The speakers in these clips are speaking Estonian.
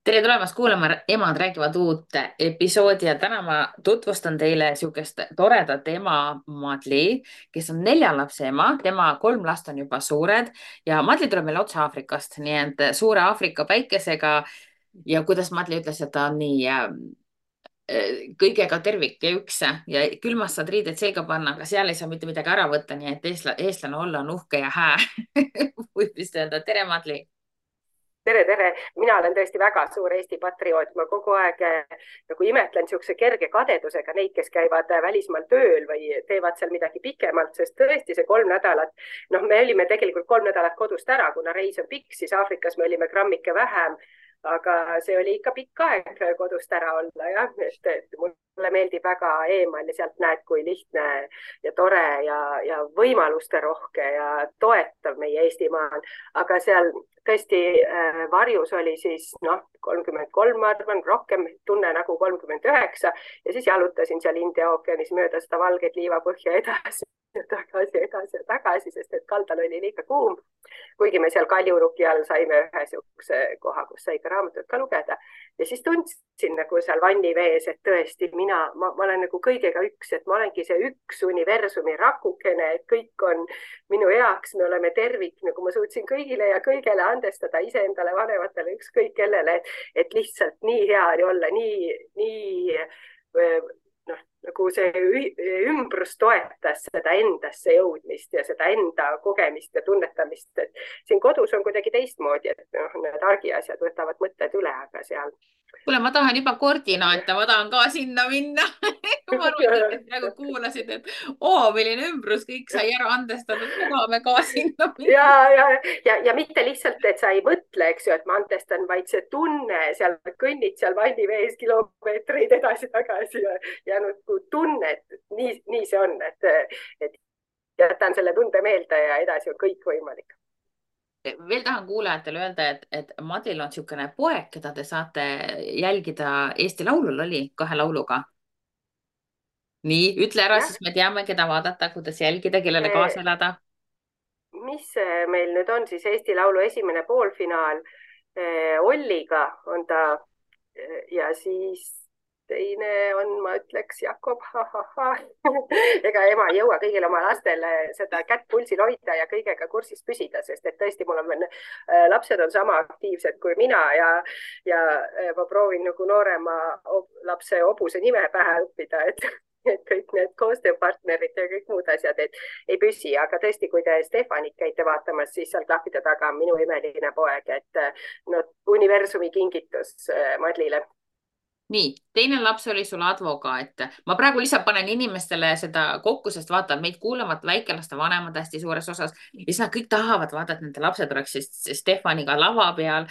Tere tulemast kuulama Emad räägivad uut episoodi ja täna ma tutvustan teile sihukest toredat ema Madli, kes on 4 lapse ema, tema 3 last on juba suured ja Madli tuleb meile otse Aafrikast, nii et suure Aafrika päikesega ja kuidas Madli ütles, et ta on nii kõigega tervik ja üks ja külmast saad riided selga panna, aga seal ei saa mitte midagi ära võtta, nii et eestlane olla on uhke ja hää võib vist öelda. Tere, Madli. Tere, tere! Mina olen tõesti väga suur Eesti patrioot. Ma kogu aeg nagu imetlen niisuguse kerge kadedusega neid, kes käivad välismaal tööl või teevad seal midagi pikemalt, sest tõesti see 3 nädalat, me olime tegelikult 3 nädalat kodust ära, kuna reis on pikk, siis Aafrikas me olime grammike vähem, aga see oli ikka pikk aeg kodust ära olla, jah, et mulle meeldib väga eemal ja sealt näed, kui lihtne ja tore ja võimaluste rohke ja toetav meie Eestimaa on. Aga seal tõesti varjus oli siis 33, ma arvan, rohkem tunne nagu 39 ja siis jalutasin seal India ookeanis mööda seda valget liivapõhja edasi ja tagasi, sest et kaldal oli liiga kuum. Kuigi me seal Kaljuruki all saime ühe niisuguse koha, kus sai ka raamatut ka lugeda ja siis tundsin nagu seal vannivees, et tõesti ma olen nagu kõigega üks, et ma olengi see üks universumi rakukene, et kõik on minu heaks, me oleme tervik, nagu ma suutsin kõigile ja kõigele andestada, iseendale, vanematele, ükskõik kellele, et lihtsalt nii hea oli olla, nii nagu see ümbrus toetas seda endasse jõudmist ja seda enda kogemist ja tunnetamist, et siin kodus on kuidagi teistmoodi, et need argiasjad võtavad mõtted üle, aga seal. Kuule, ma tahan juba koordinaate, ma tahan ka sinna minna. Ma arvan, et praegu kuulasid, et milline ümbrus, kõik sai ära andestatud, me tahame ka sinna ja, minna. ja mitte lihtsalt, et sa ei mõtle, eks ju, et ma andestan, vaid see tunne seal, kõnnid seal vannivees kilomeetreid edasi-tagasi ja nagu tunne, et nii see on, et jätan selle tunde meelde ja edasi on kõik võimalik. Veel tahan kuulajatele öelda, et Madlil on niisugune poeg, keda te saate jälgida Eesti Laulul oli 2 lauluga. Nii, ütle ära, Jah, siis me teame, keda vaadata, kuidas jälgida, kellele kaasa elada. mis meil nüüd on siis Eesti Laulu esimene poolfinaal Olliga on ta ja siis teine on, ma ütleks, Jakob, ega ema ei jõua kõigil oma lastele seda kätt pulsil hoida ja kõigega kursis püsida, sest et tõesti mul on lapsed on sama aktiivsed kui mina ja ma proovin nagu noorema lapse hobuse nime pähe õppida, et kõik need koostööpartnerid ja kõik muud asjad, et ei püsi, aga tõesti, kui te Stefanit käite vaatamas, siis seal klahvide taga on minu imeline poeg, et universumi kingitus Madlile. Nii, teine laps oli sul advokaat. Ma praegu lihtsalt panen inimestele seda kokku, sest vaata, meid kuulavad väikelaste vanemad hästi suures osas. Ja siis nad kõik tahavad vaadata, et nende lapsed oleks Stefaniga lava peal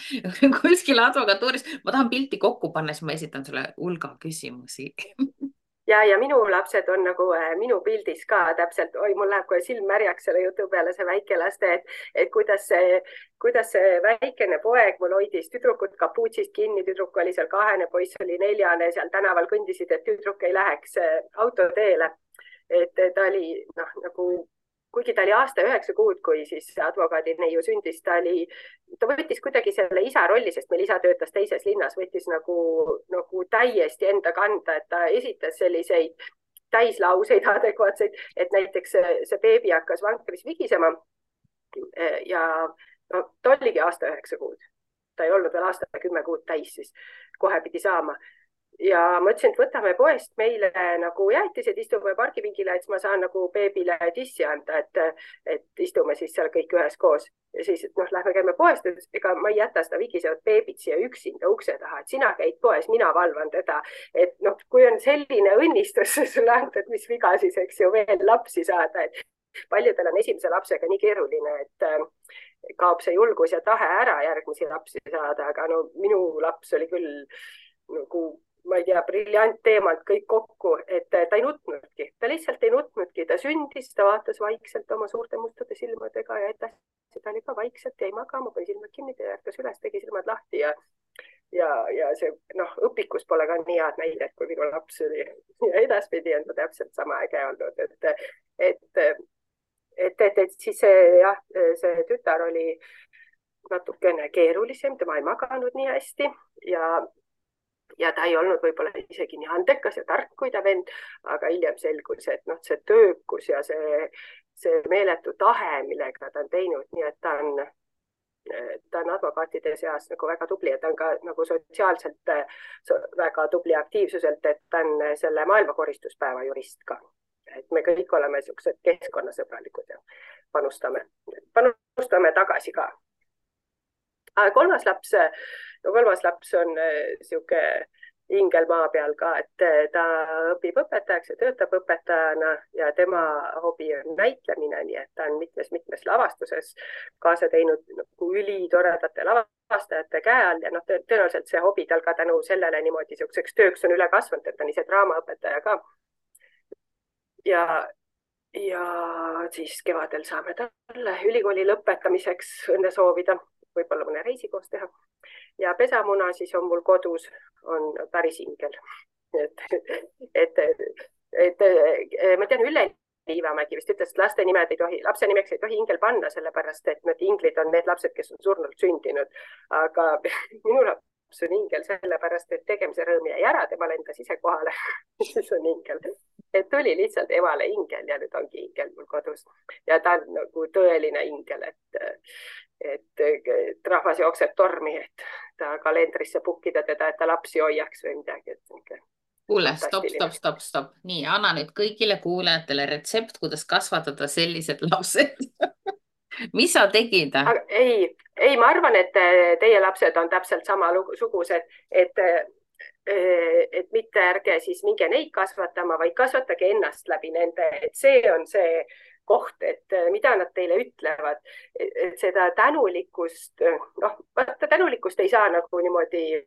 kuskil advokatuuris. Ma tahan pilti kokku panna, siis ma esitan sulle hulga küsimusi. Ja minu lapsed on nagu minu pildis ka täpselt, oi, mul läheb kohe silm märjaks selle jutu peale, see väikelaste, et kuidas see väikene poeg mul hoidis tüdrukut kapuutsist kinni, tüdruk oli seal 2, poiss oli 4, seal tänaval kõndisid, et tüdruk ei läheks autoteele. Et ta oli nagu, kuigi ta oli aasta 9 kuud, kui siis advokaadi neiu sündis, ta võttis kuidagi selle isa rolli, sest meil isa töötas teises linnas, võttis nagu täiesti enda kanda, et ta esitas selliseid täislauseid adekvaatseid, et näiteks see beebi hakkas vankris vigisema ja ta oligi aasta 9 kuud. Ta ei olnud veel aasta 10 kuud täis, siis kohe pidi saama. Ja ma ütlesin, et võtame poest meile nagu jäätised, istume pargipingile, et ma saan nagu beebile tissi anda, et istume siis seal kõik üheskoos. Ja siis, lähme käime poest, ega ma ei jäta seda vigisevat beebit siia üksinda ukse taha, et sina käid poes, mina valvan teda. Et kui on selline õnnistus sulle antud, mis viga siis, eks ju, veel lapsi saada, et paljudel on esimese lapsega nii keeruline, et kaob see julgus ja tahe ära järgmisi lapsi saada, aga minu laps oli küll nagu ma ei tea, briljantteemalt kõik kokku, et ta ei nutnudki, ta lihtsalt ei nutnudki, ta sündis, ta vaatas vaikselt oma suurte mustade silmadega ja edasi ta oli ka vaikselt, jäi magama, pani silmad kinni, ärkas üles, tegi silmad lahti ja see õpikus pole ka nii head näidet, kui minu laps oli ja edaspidi on ta täpselt sama äge olnud, et siis see tütar oli natukene keerulisem, tema ei maganud nii hästi ja ta ei olnud võib-olla isegi nii andekas ja tark kui ta vend, aga hiljem selgus, et noh, see töökus ja see meeletu tahe, millega ta on teinud, nii et ta on advokaatide seas nagu väga tubli ja ta on ka nagu sotsiaalselt väga tubli aktiivsuselt, et ta on selle maailmakoristuspäeva jurist ka. Et me kõik oleme niisugused keskkonnasõbralikud ja panustame tagasi ka. Kolmas laps on niisugune ingel maa peal ka, et ta õpib õpetajaks ja töötab õpetajana ja tema hobi on näitlemine, nii et ta on mitmes lavastuses kaasa teinud nagu ülitoredate lavastajate käe all ja noh, tõenäoliselt see hobi tal ka tänu sellele niimoodi niisuguseks tööks on üle kasvanud, et ta on ise draamaõpetaja ka. Ja siis kevadel saame talle ülikooli lõpetamiseks õnne soovida, võib-olla mõne reisi koos teha. Ja pesamuna siis on mul kodus, on päris ingel. Ma tean, Ülle Liivamägi vist ütles, et lapse nimeks ei tohi ingel panna, sellepärast et need inglid on need lapsed, kes on surnult sündinud. Aga minu laps on ingel sellepärast, et tegemise rõõm jäi ära, tema lendas ise kohale. Siis on ingel. Et tuli lihtsalt emale ingel ja nüüd ongi ingel mul kodus. Ja ta on nagu tõeline ingel, et rahvas jookseb tormi, et ta kalendrisse pukkida teda, et ta lapsi hoiaks või midagi. Kuule, stop. Nii, anna nüüd kõigile kuulajatele retsept, kuidas kasvatada sellised lapsed. Mis sa tegid? Ei, ma arvan, et teie lapsed on täpselt samasugused, et mitte ärge siis minge neid kasvatama, vaid kasvatage ennast läbi nende, et see on see koht, et mida nad teile ütlevad, et seda tänulikkust, noh, tänulikkust ei saa nagu niimoodi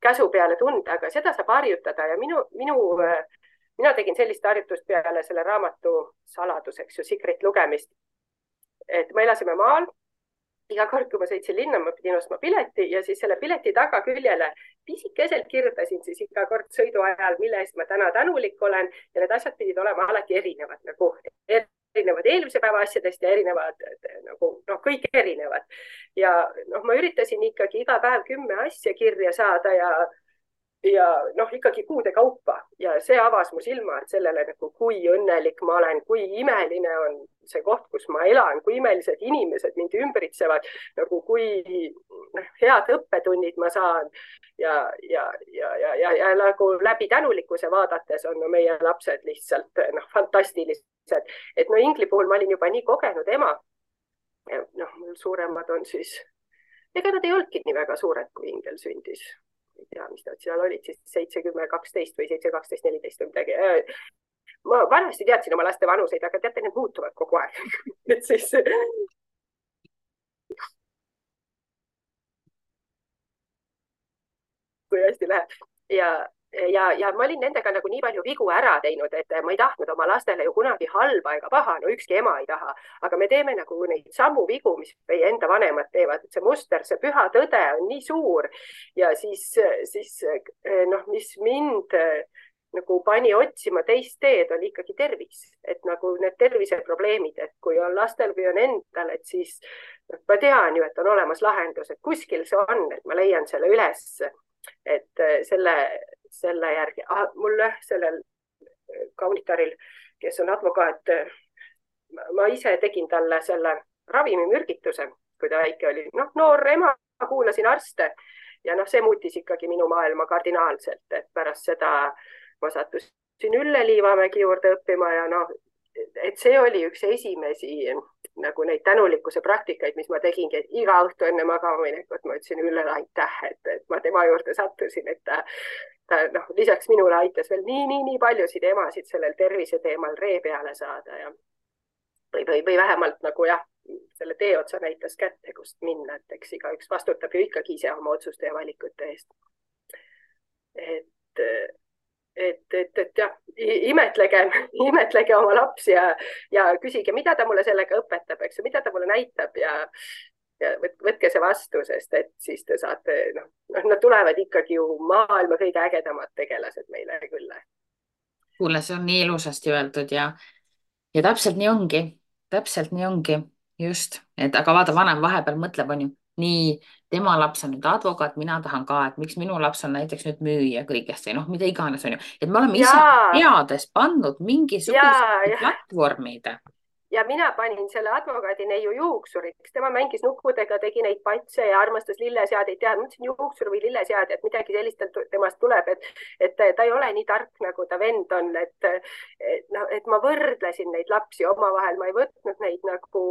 käsu peale tunda, aga seda saab harjutada ja mina tegin sellist harjutust peale selle raamatu saladuseks ju Secret lugemist, et me elasime maal. Iga kord, kui ma sõitsin linna, ma pidin ostma pileti ja siis selle pileti tagaküljele pisikeselt kirjutasin siis iga kord sõidu ajal, mille eest ma täna tänulik olen ja need asjad pidid olema alati erinevad, nagu erinevad eelmise päeva asjadest ja erinevad, nagu kõik erinevad. Ja ma üritasin ikkagi iga päev 10 asja kirja saada ja ikkagi kuude kaupa ja see avas mu silmad sellele, nagu kui õnnelik ma olen, kui imeline on see koht, kus ma elan, kui imelised inimesed mind ümbritsevad, nagu kui head õppetunnid ma saan ja nagu läbi tänulikkuse vaadates on meie lapsed lihtsalt fantastilised. Et ingli puhul ma olin juba nii kogenud ema. Mul suuremad on siis, ega nad ei olnudki nii väga suured, kui ingel sündis. Ei tea, mis nad seal olid, siis 7-10-12 või 7-12-14 või midagi. Ma vanasti teadsin oma laste vanuseid, aga teate, need muutuvad kogu aeg. Et siis... Kui hästi läheb. Ja ma olin nendega nagu nii palju vigu ära teinud, et ma ei tahtnud oma lastele ju kunagi halba ega paha, no ükski ema ei taha, aga me teeme nagu neid samu vigu, mis meie enda vanemad teevad, et see muster, see püha tõde on nii suur ja siis mis mind nagu pani otsima teist teed, oli ikkagi tervis, et nagu need terviseprobleemid, et kui on lastel või on endal, et siis ma tean ju, et on olemas lahendus, et kuskil see on, et ma leian selle üles, et selle järgi, mulle sellel kaunitaril, kes on advokaat, ma ise tegin talle selle ravimimürgituse, kui ta väike oli, noor ema, kuulasin arste ja see muutis ikkagi minu maailma kardinaalselt, et pärast seda ma sattusin Ülle Liivamägi juurde õppima ja et see oli üks esimesi nagu neid tänulikkuse praktikaid, mis ma tegingi, et iga õhtu enne magamaminekut ma ütlesin Üllele aitäh, et ma tema juurde sattusin, et ta lisaks minule aitas veel nii paljusid emasid sellel tervise teemal ree peale saada ja või vähemalt nagu selle tee otsa näitas kätte, kust minna, et eks igaüks vastutab ju ikkagi ise oma otsuste ja valikute eest. Et jah, imetlege oma lapsi ja küsige, mida ta mulle sellega õpetab, eks ju, mida ta mulle näitab ja võtke see vastu, sest et siis te saate, nad tulevad ikkagi ju maailma kõige ägedamad tegelased meile küll. Kuule, see on nii ilusasti öeldud ja täpselt nii ongi, just, et aga vaata, vanem vahepeal mõtleb, on ju, nii, tema laps on nüüd advokaat, mina tahan ka, et miks minu laps on näiteks nüüd müüja kõigest või noh, mida iganes on ju, et me oleme ise ja, teades pannud mingisugused ja platvormid. ja mina panin selle advokaadi neiu juuksuriks, tema mängis nukkudega, tegi neid patse ja armastas lilleseadeid teha. Mõtlesin juuksur või lilleseade, et midagi sellist temast tuleb, et ta ei ole nii tark, nagu ta vend on, et ma võrdlesin neid lapsi omavahel, ma ei võtnud neid nagu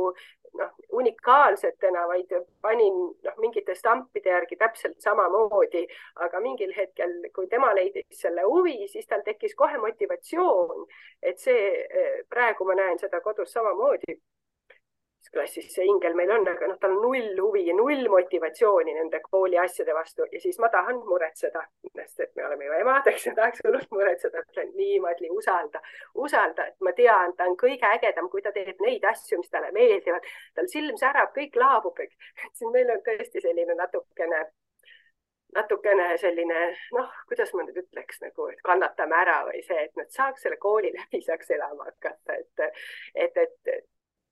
unikaalsetena, vaid panin mingite stampide järgi täpselt samamoodi, aga mingil hetkel, kui tema leidis selle huvi, siis tal tekkis kohe motivatsioon, et see praegu ma näen seda kodus samamoodi. Klassis see ingel meil on, aga tal on null huvi ja null motivatsiooni nende kooli asjade vastu ja siis ma tahan muretseda, sest et me oleme ju emad, eks ja tahaks hullult muretseda, ütlen nii, Madli, usalda, et ma tean, ta on kõige ägedam, kui ta teeb neid asju, mis talle meeldivad, tal silm särab, kõik laabub, siin meil on tõesti selline natukene selline, kuidas ma nüüd ütleks nagu, et kannatame ära või see, et nad saaks selle kooli läbi, saaks elama hakata,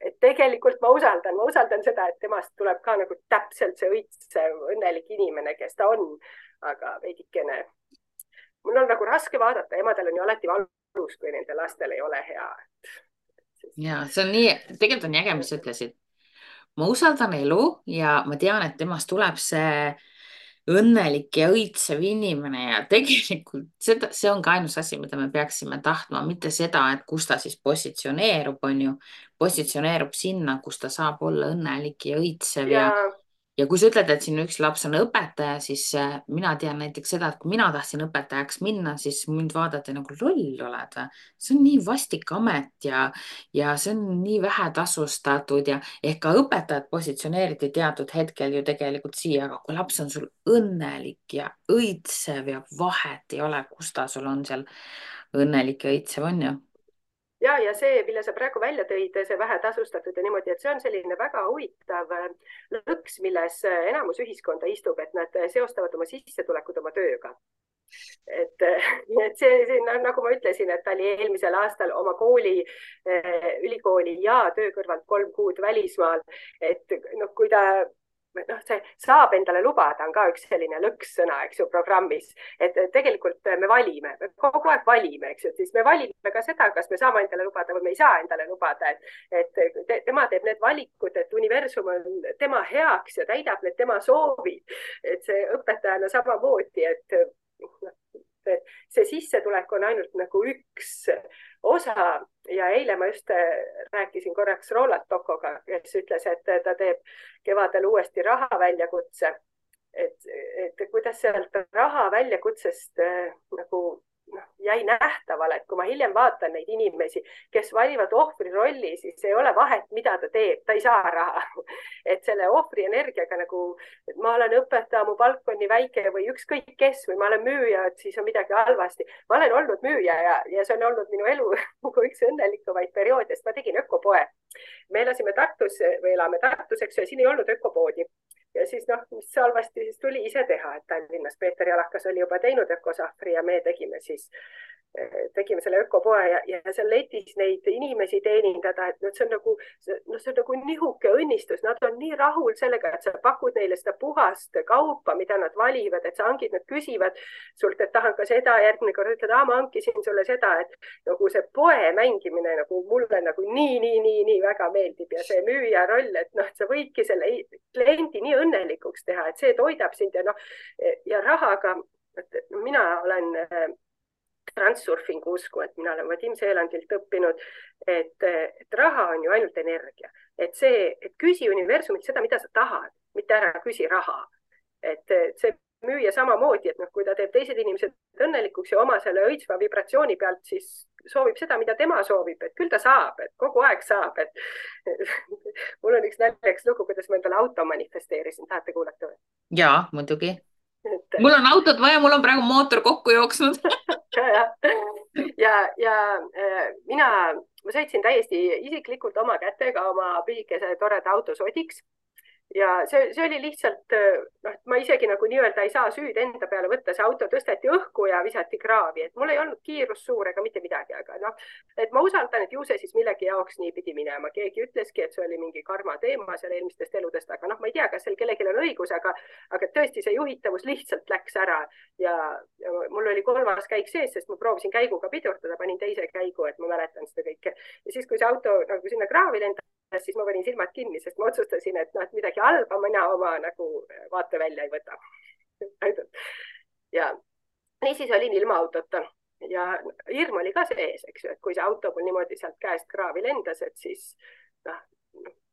et tegelikult ma usaldan seda, et temast tuleb ka nagu täpselt see õitsev, õnnelik inimene, kes ta on, aga veidikene, mul on nagu raske vaadata, emadel on ju alati valus, kui nende lastel ei ole hea. Ja see on nii, tegelikult on jäge, mis sa ütlesid. Ma usaldan elu ja ma tean, et temast tuleb see õnnelik ja õitsev inimene ja tegelikult see on ka ainus asi, mida me peaksime tahtma, mitte seda, et kus ta siis positsioneerub, on ju, positsioneerub sinna, kus ta saab olla õnnelik ja õitsev ja kui sa ütled, et siin üks laps on õpetaja, siis mina tean näiteks seda, et kui mina tahtsin õpetajaks minna, siis mind vaadati nagu loll oled või. See on nii vastik amet ja see on nii vähe tasustatud ja ehk ka õpetajad positsioneeriti teatud hetkel ju tegelikult siia, aga kui laps on sul õnnelik ja õitsev ja vahet ei ole, kus ta sul on seal õnnelik ja õitsev on ju. Ja see, mille sa praegu välja tõid, see vähetasustatud ja niimoodi, et see on selline väga huvitav lõks, milles enamus ühiskonda istub, et nad seostavad oma sissetulekud oma tööga. Et see nagu ma ütlesin, et ta oli eelmisel aastal oma ülikooli ja töö kõrvalt 3 kuud välismaal, et kui ta see saab endale lubada, on ka üks selline lõkssõna, eks ju, programmis, et tegelikult me valime, kogu aeg valime, eks ju, siis me valime ka seda, kas me saame endale lubada või me ei saa endale lubada, et tema teeb need valikud, et universum on tema heaks ja täidab need tema soovid, et see õpetajana samamoodi, et see sissetulek on ainult nagu üks osa ja eile ma just rääkisin korraks Roland Tokoga, kes ütles, et ta teeb kevadel uuesti raha väljakutse, et kuidas sealt raha väljakutsest nagu jäi nähtavale, et kui ma hiljem vaatan neid inimesi, kes valivad ohvri rolli, siis ei ole vahet, mida ta teeb, ta ei saa raha. Et selle ohvri energiaga nagu, et ma olen õpetaja, mu palk on nii väike või ükskõik kes või ma olen müüja, et siis on midagi halvasti. Ma olen olnud müüja ja see on olnud minu elu nagu üks õnnelikumaid perioode, sest ma tegin ökopoe. Me elasime Tartus või elame Tartus, eks ju, ja siin ei olnud ökopoodi. Ja siis mis halvasti siis tuli ise teha, et Tallinnas Peeter Jalakas oli juba teinud ökosahvri ja me tegime selle ökopoe ja seal letis neid inimesi teenindada, et see on nagu nihuke õnnistus, nad on nii rahul sellega, et sa pakud neile seda puhast kaupa, mida nad valivad, et sa hangid, nad küsivad sult, et tahan ka seda, järgmine kord ütled, ma hankisin sulle seda, et nagu see poe mängimine nagu mulle nagu nii väga meeldib ja see müüja roll, et sa võidki selle kliendi nii õnnelikuks teha, et see toidab sind ja rahaga, mina olen transurfingu usku, et mina olen Vadim Seelandilt õppinud, et raha on ju ainult energia, et küsi universumilt seda, mida sa tahad, mitte ära küsi raha. Et see müüja samamoodi, et kui ta teeb teised inimesed õnnelikuks ja oma selle õitsva vibratsiooni pealt, siis soovib seda, mida tema soovib, et küll ta saab, et kogu aeg saab, et mul on üks naljakas lugu, kuidas ma endale auto manifesteerisin, tahate kuulata või? Jaa, muidugi. Mul on autot vaja, mul on praegu mootor kokku jooksnud. ja ma sõitsin täiesti isiklikult oma kätega oma pisikese toreda auto sodiks ja see oli lihtsalt, noh, ma isegi nagu nii-öelda ei saa süüd enda peale võtta, see auto tõsteti õhku ja visati kraavi, et mul ei olnud kiirus suur ega mitte midagi, aga noh, et ma usaldan, et ju see siis millegi jaoks nii pidi minema. Keegi ütleski, et see oli mingi karma teema seal eelmistest eludest, aga noh, ma ei tea, kas seal kellelgi on õigus, aga tõesti see juhitavus lihtsalt läks ära ja mul oli 3. käik sees, sest ma proovisin käiguga pidurdada, panin teise käigu, et ma mäletan seda kõike. Ja siis, kui see auto nagu sinna kraavi lendas, siis ma panin silmad kinni, sest ma otsustasin, et noh, et midagi halba mina oma nagu vaatevälja ei võta. Ja niisiis olin ilma autota ja hirm oli ka sees, eks ju, et kui see auto mul niimoodi sealt käest kraavi lendas, et siis noh,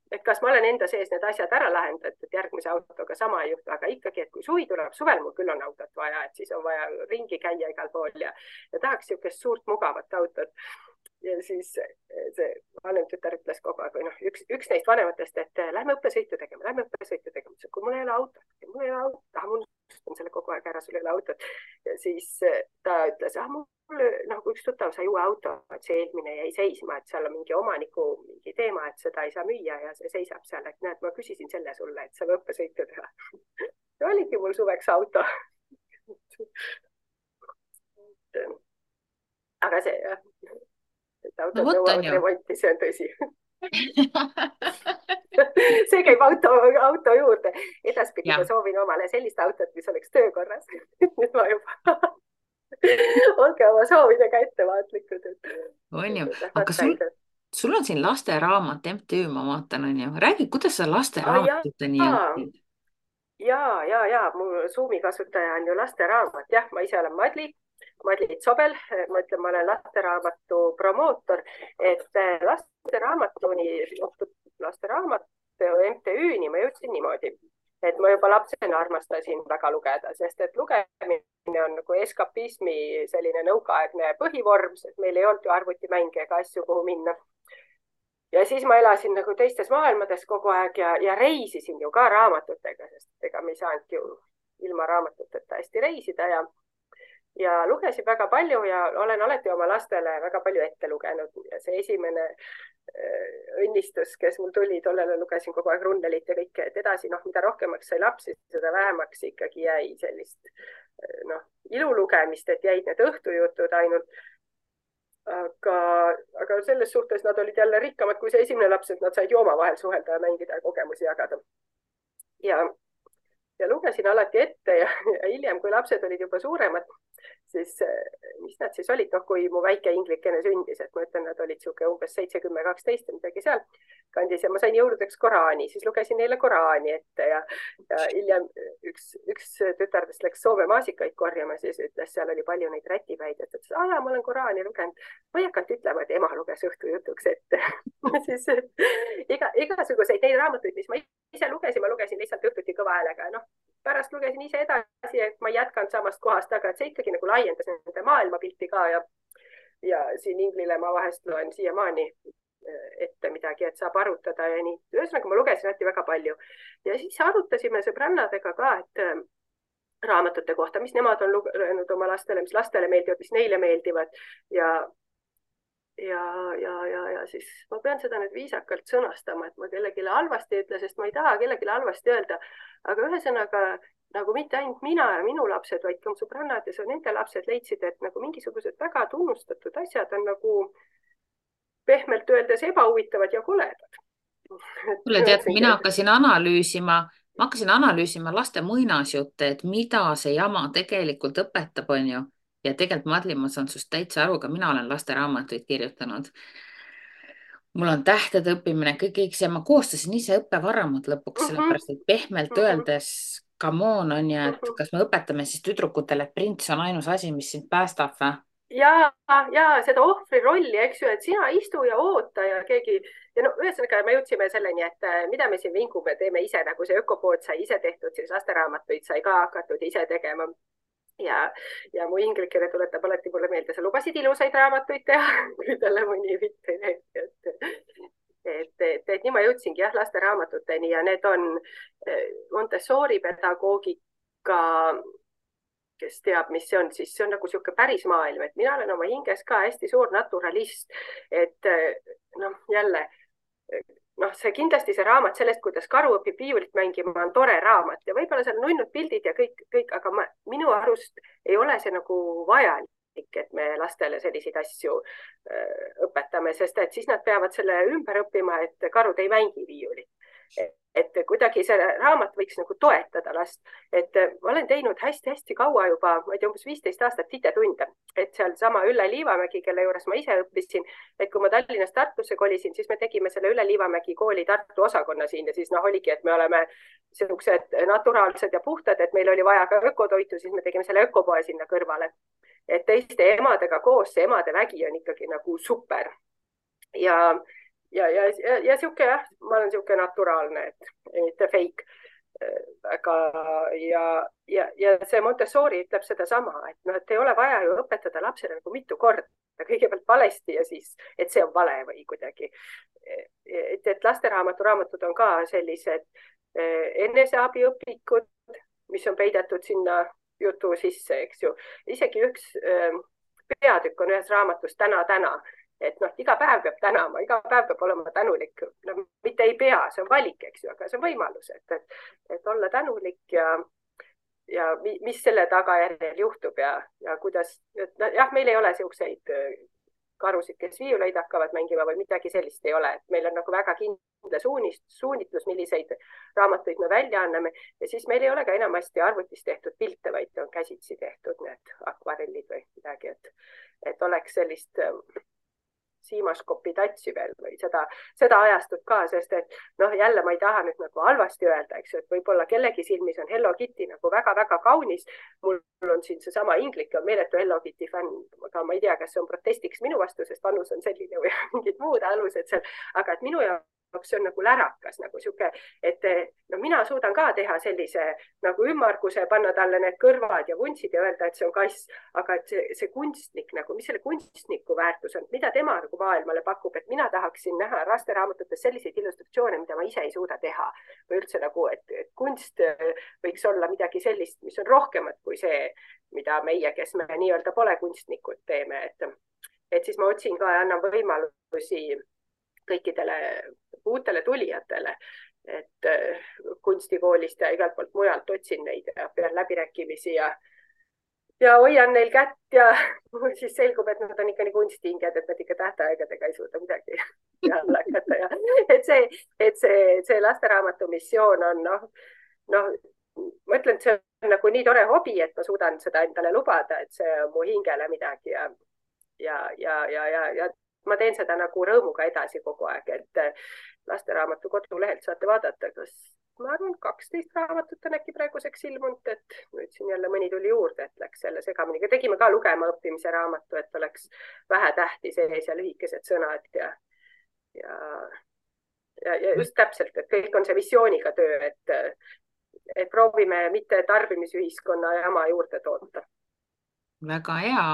et kas ma olen enda sees need asjad ära lahendanud, et järgmise autoga sama ei juhtu, aga ikkagi, et kui suvi tuleb, suvel mul küll on autot vaja, et siis on vaja ringi käia igal pool ja tahaks niisugust suurt mugavat autot. Ja siis see vanem tütar ütles kogu aeg, või noh, üks neist vanematest, et lähme õppesõitu tegema. Kui mul ei ole autot, ma unustan selle kogu aeg ära, sul ei ole autot. Ja siis ta ütles, mul nagu üks tuttav sai uue auto, et see eelmine jäi seisma, et seal on mingi omaniku mingi teema, et seda ei saa müüa ja see seisab seal, et näed, ma küsisin selle sulle, et saab õppesõitu teha. See oligi mul suveks auto. Aga see jah. Et autod nõuavad remonti, see on tõsi. See käib auto juurde. Edaspidi ma soovin omale sellist autot, mis oleks töökorras. Nüüd ma juba olge oma soovidega ettevaatlikud. On ju, aga sul on siin lasteraamat MTÜ, ma vaatan, on ju. Räägi, kuidas sa lasteraamatuteni jõudsid? Ja, mu Zoomi kasutaja on ju lasteraamat. Jah, ma ise olen Madli Tsobel, ma ütlen, ma olen lasteraamatu promootor, et lasteraamatu MTÜ-ni ma jõudsin niimoodi, et ma juba lapsena armastasin väga lugeda, sest et lugemine on nagu eskapismi selline nõukaaegne põhivorm, sest meil ei olnud ju arvutimänge ega asju, kuhu minna. Ja siis ma elasin nagu teistes maailmades kogu aeg ja reisisin ju ka raamatutega, sest ega me ei saanud ju ilma raamatuteta hästi reisida ja lugesin väga palju ja olen alati oma lastele väga palju ette lugenud. Ja see esimene õnnistus, kes mul tuli, tollele lugesin kogu aeg Runnelit ja kõike, et edasi, noh, mida rohkemaks sai lapsi, seda vähemaks ikkagi jäi sellist ilulugemist, et jäid need õhtujutud ainult. Aga selles suhtes nad olid jälle rikkamad kui see esimene laps, et nad said ju omavahel suhelda ja mängida ja kogemusi jagada. Ja lugesin alati ette ja hiljem, kui lapsed olid juba suuremad, siis mis nad siis olid, noh, kui mu väike inglikene sündis, et ma ütlen, nad olid siuke umbes 7, 10, 12 midagi seal kandis ja ma sain jõuludeks Koraani, siis lugesin neile Koraani ette ja hiljem üks tütardest läks Soome maasikaid korjama, siis ütles, seal oli palju neid rätipäid, et ütles, ma olen Koraani lugenud. Ma ei hakanud ütlema, et ema luges õhtujutuks ette. Siis igasuguseid neid raamatuid, mis ma ise lugesin, ma lugesin lihtsalt õhtuti kõva häälega. Noh, pärast lugesin ise edasi, et ma ei jätkanud samast kohast, aga et see ikkagi nagu laiendas nende maailmapilti ka ja siin Inglile ma vahest loen siiamaani ette midagi, et saab arutada ja nii. Ühesõnaga ma lugesin alati väga palju ja siis arutasime sõbrannadega ka, et raamatute kohta, mis nemad on lugenud oma lastele, mis lastele meeldivad, mis neile meeldivad ja siis ma pean seda nüüd viisakalt sõnastama, et ma kellelegi halvasti ütle, sest ma ei taha kellelegi halvasti öelda, aga ühesõnaga nagu mitte ainult mina ja minu lapsed, vaid ka sõbrannad ja nende lapsed leidsid, et nagu mingisugused väga tunnustatud asjad on nagu pehmelt öeldes ebahuvitavad ja koledad. Kuule, tead, mina hakkasin analüüsima laste muinasjutte, et mida see jama tegelikult õpetab, on ju. Ja tegelikult Madli, ma saan sust täitsa aru, ka mina olen lasteraamatuid kirjutanud. Mul on tähtede õppimine, kõik see, ma koostasin ise õppevaramud lõpuks, sellepärast, et pehmelt öeldes, come on, on ju, et kas me õpetame siis tüdrukutele, et prints on ainus asi, mis sind päästab või? Ja seda ohvri rolli, eks ju, et sina istu ja oota ja keegi ja no ühesõnaga me jõudsime selleni, et mida me siin vingume, teeme ise, nagu see ökopood sai ise tehtud, siis lasteraamatuid sai ka hakatud ise tegema. Ja mu inglikene tuletab alati mulle meelde, sa lubasid ilusaid raamatuid teha, kui talle mõni mitte et nii ma jõudsingi jah lasteraamatuteni ja need on Montessori pedagoogika, kes teab, mis see on, siis see on nagu sihuke päris maailm, et mina olen oma hinges ka hästi suur naturalist, et noh, jälle noh, see kindlasti see raamat sellest, kuidas karu õpib viiulit mängima, on tore raamat ja võib-olla seal nunnud pildid ja kõik, aga minu arust ei ole see nagu vajalik, et me lastele selliseid asju õpetame, sest et siis nad peavad selle ümber õppima, et karud ei mängi viiulit. Et kuidagi see raamat võiks nagu toetada last, et ma olen teinud hästi-hästi kaua juba, ma ei tea, umbes 15 aastat titetunde, et seal sama Ülle Liivamägi, kelle juures ma ise õppisin, et kui ma Tallinnast Tartusse kolisin, siis me tegime selle Ülle Liivamägi kooli Tartu osakonna siin ja siis noh, oligi, et me oleme sellised naturaalsed ja puhtad, et meil oli vaja ka ökotoitu, siis me tegime selle ökopoe sinna kõrvale. Et teiste emadega koos see emade vägi on ikkagi nagu super. Ja siuke jah, ma olen siuke naturaalne, et mitte fake. Aga ja see Montessori ütleb seda sama, et noh, et ei ole vaja ju õpetada lapsele nagu mitu korda, kõigepealt valesti ja siis, et see on vale või kuidagi. Et lasteraamatud on ka sellised eneseabiõpikud, mis on peidetud sinna jutu sisse, eks ju. Isegi üks peatükk on ühes raamatus täna. Et noh, iga päev peab tänama, iga päev peab olema tänulik. No, mitte ei pea, see on valik, eks ju, aga see on võimalus, et olla tänulik ja mis selle tagajärjel juhtub ja kuidas, jah, meil ei ole siukseid karusid, kes viiuleid hakkavad mängima või midagi sellist ei ole. Et meil on nagu väga kindla suunitlus, milliseid raamatuid me välja anname ja siis meil ei ole ka enamasti arvutis tehtud pilte, vaid on käsitsi tehtud need akvarellid või midagi, et oleks sellist siimaskopi tatsi veel või seda ajastut ka, sest et noh, jälle ma ei taha nüüd nagu halvasti öelda, eks ju, et võib-olla kellegi silmis on Hello Kitty nagu väga-väga kaunis. Mul on siin seesama inglik on meeletu Hello Kitty fänn, aga ma ei tea, kas see on protestiks minu vastu, sest vanus on selline või mingid muud alused seal, aga et minu jaoks see on nagu lärakas, nagu siuke, et no mina suudan ka teha sellise nagu ümmarguse, panna talle need kõrvad ja vuntsid ja öelda, et see on kass, aga et see kunstnik nagu, mis selle kunstniku väärtus on, mida tema nagu maailmale pakub, et mina tahaksin näha lasteraamatutes selliseid illustratsioone, mida ma ise ei suuda teha või üldse nagu, et kunst võiks olla midagi sellist, mis on rohkemat kui see, mida meie, kes me nii-öelda pole kunstnikud, teeme, et siis ma otsin ka ja annan võimalusi kõikidele uutele tulijatele, et kunstikoolist ja igalt poolt mujalt otsin neid ja pean läbirääkimisi ja hoian neil kätt ja siis selgub, et nad on ikka nii kunstinged, et nad ikka tähtaegadega ei suuda midagi peale hakata ja et see lasteraamatu missioon on noh, ma ütlen, et see on nagu nii tore hobi, et ma suudan seda endale lubada, et see on mu hingele midagi ja ma teen seda nagu rõõmuga edasi kogu aeg, et lasteraamatu kodulehelt saate vaadata, kas ma arvan, 12 raamatut on äkki praeguseks ilmunud, et nüüd siin jälle mõni tuli juurde, et läks selle segamini. Tegime ka lugema õppimise raamatu, et oleks vähe tähti sees ja lühikesed sõnad ja just täpselt, et kõik on see visiooniga töö, et proovime mitte tarbimisühiskonna jama juurde toota. Väga hea.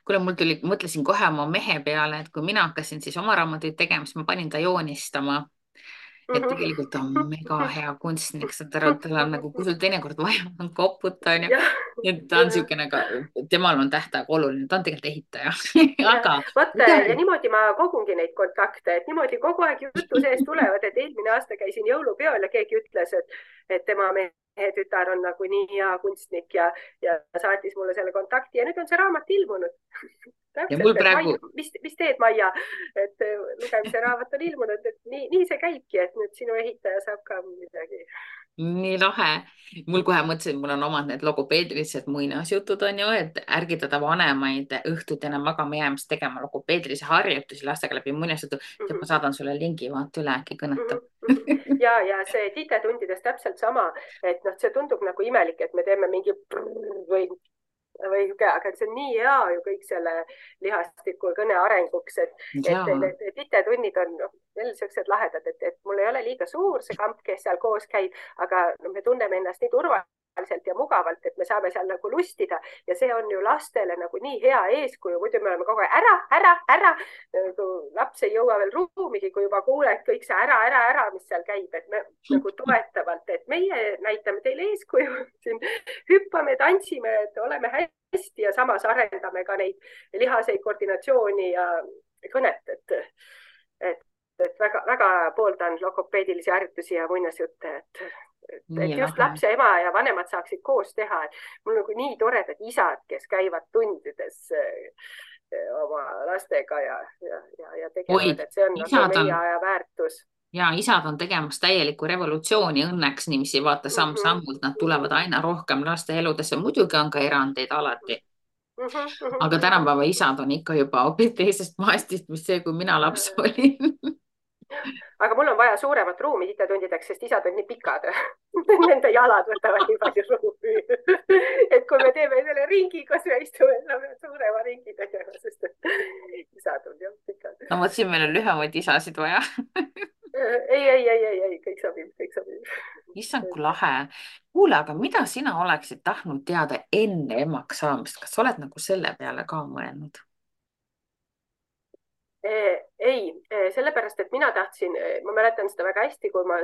Kuule, mõtlesin kohe oma mehe peale, et kui mina hakkasin siis oma raamatuid tegema, siis ma panin ta joonistama. Et tegelikult on mega hea kunstnik, tal on nagu, kui sul teinekord vaja on koputa, on ju. Et ta on siukene, temal on tähtaeg oluline, ta on tegelikult ehitaja. Aga ja niimoodi ma kogungi neid kontakte, et niimoodi kogu aeg jutu sees tulevad, et eelmine aasta käisin jõulupeol ja keegi ütles, et tema mehe tütar on nagu nii hea kunstnik ja saatis mulle selle kontakti ja nüüd on see raamat ilmunud. Täpselt, praegu... mis teed, Maia, et lugemise raamat on ilmunud, et nii see käibki, et nüüd sinu ehitaja saab ka midagi. Nii lahe. Mul kohe mõtlesin, mul on omad need logopeedilised muinasjutud on ju, et ärgitada vanemaid õhtut enne magama jäämist tegema logopeedilise harjutusi lastega läbi muinasjutu. Ja ma saadan sulle lingi, vaata üle, äkki kõnetab. Ja see titetundides täpselt sama, et noh, see tundub nagu imelik, et me teeme mingi aga see on nii hea ju kõik selle lihastiku kõne arenguks, et titetunnid on veel sellised lahedad, et mul ei ole liiga suur see kamp, kes seal koos käib, aga me tunneme ennast nii turvaliselt ja mugavalt, et me saame seal nagu lustida ja see on ju lastele nagu nii hea eeskuju, muidu me oleme kogu aeg ära, laps ei jõua veel ruumigi, kui juba kuuled kõik see ära, mis seal käib, et me nagu toetavalt, et meie näitame teile eeskuju, siin hüppame, tantsime, et oleme hästi ja samas arendame ka neid lihaseid koordinatsiooni ja kõnet, et et väga pooldan logopeedilisi harjutusi ja muinasjutte, Nii et just lahe. laps ja ema ja vanemad saaksid koos teha. Mul nagu nii toredad isad, kes käivad tundides oma lastega ja Oi, tegelevad, et see on nagu isad meie on, aja väärtus. ja isad on tegemas täielikku revolutsiooni õnneks niiviisi vaata Mm -hmm, samm-sammult, nad mm tulevad -hmm, aina rohkem laste eludesse, muidugi on ka erandeid alati, mm -hmm, mm aga -hmm. tänapäeva isad on ikka juba hoopis teisest maastist, mis see, kui mina laps olin. Aga mul on vaja suuremat ruumi hitetundideks, sest isad on nii pikad. Nende jalad võtavad nii palju ruumi. Et kui me teeme selle ringi, kus me istume, saame suurema ringi tegema, sest isad on jah pikad. No vot, siin meil on lühemaid isasid vaja. Ei, kõik sobib, kõik sobib. Issand, kui lahe. Kuule, aga mida sina oleksid tahtnud teada enne emaks saamist? Kas sa oled nagu selle peale ka mõelnud? Ei, sellepärast, et mina tahtsin, ma mäletan seda väga hästi, kui ma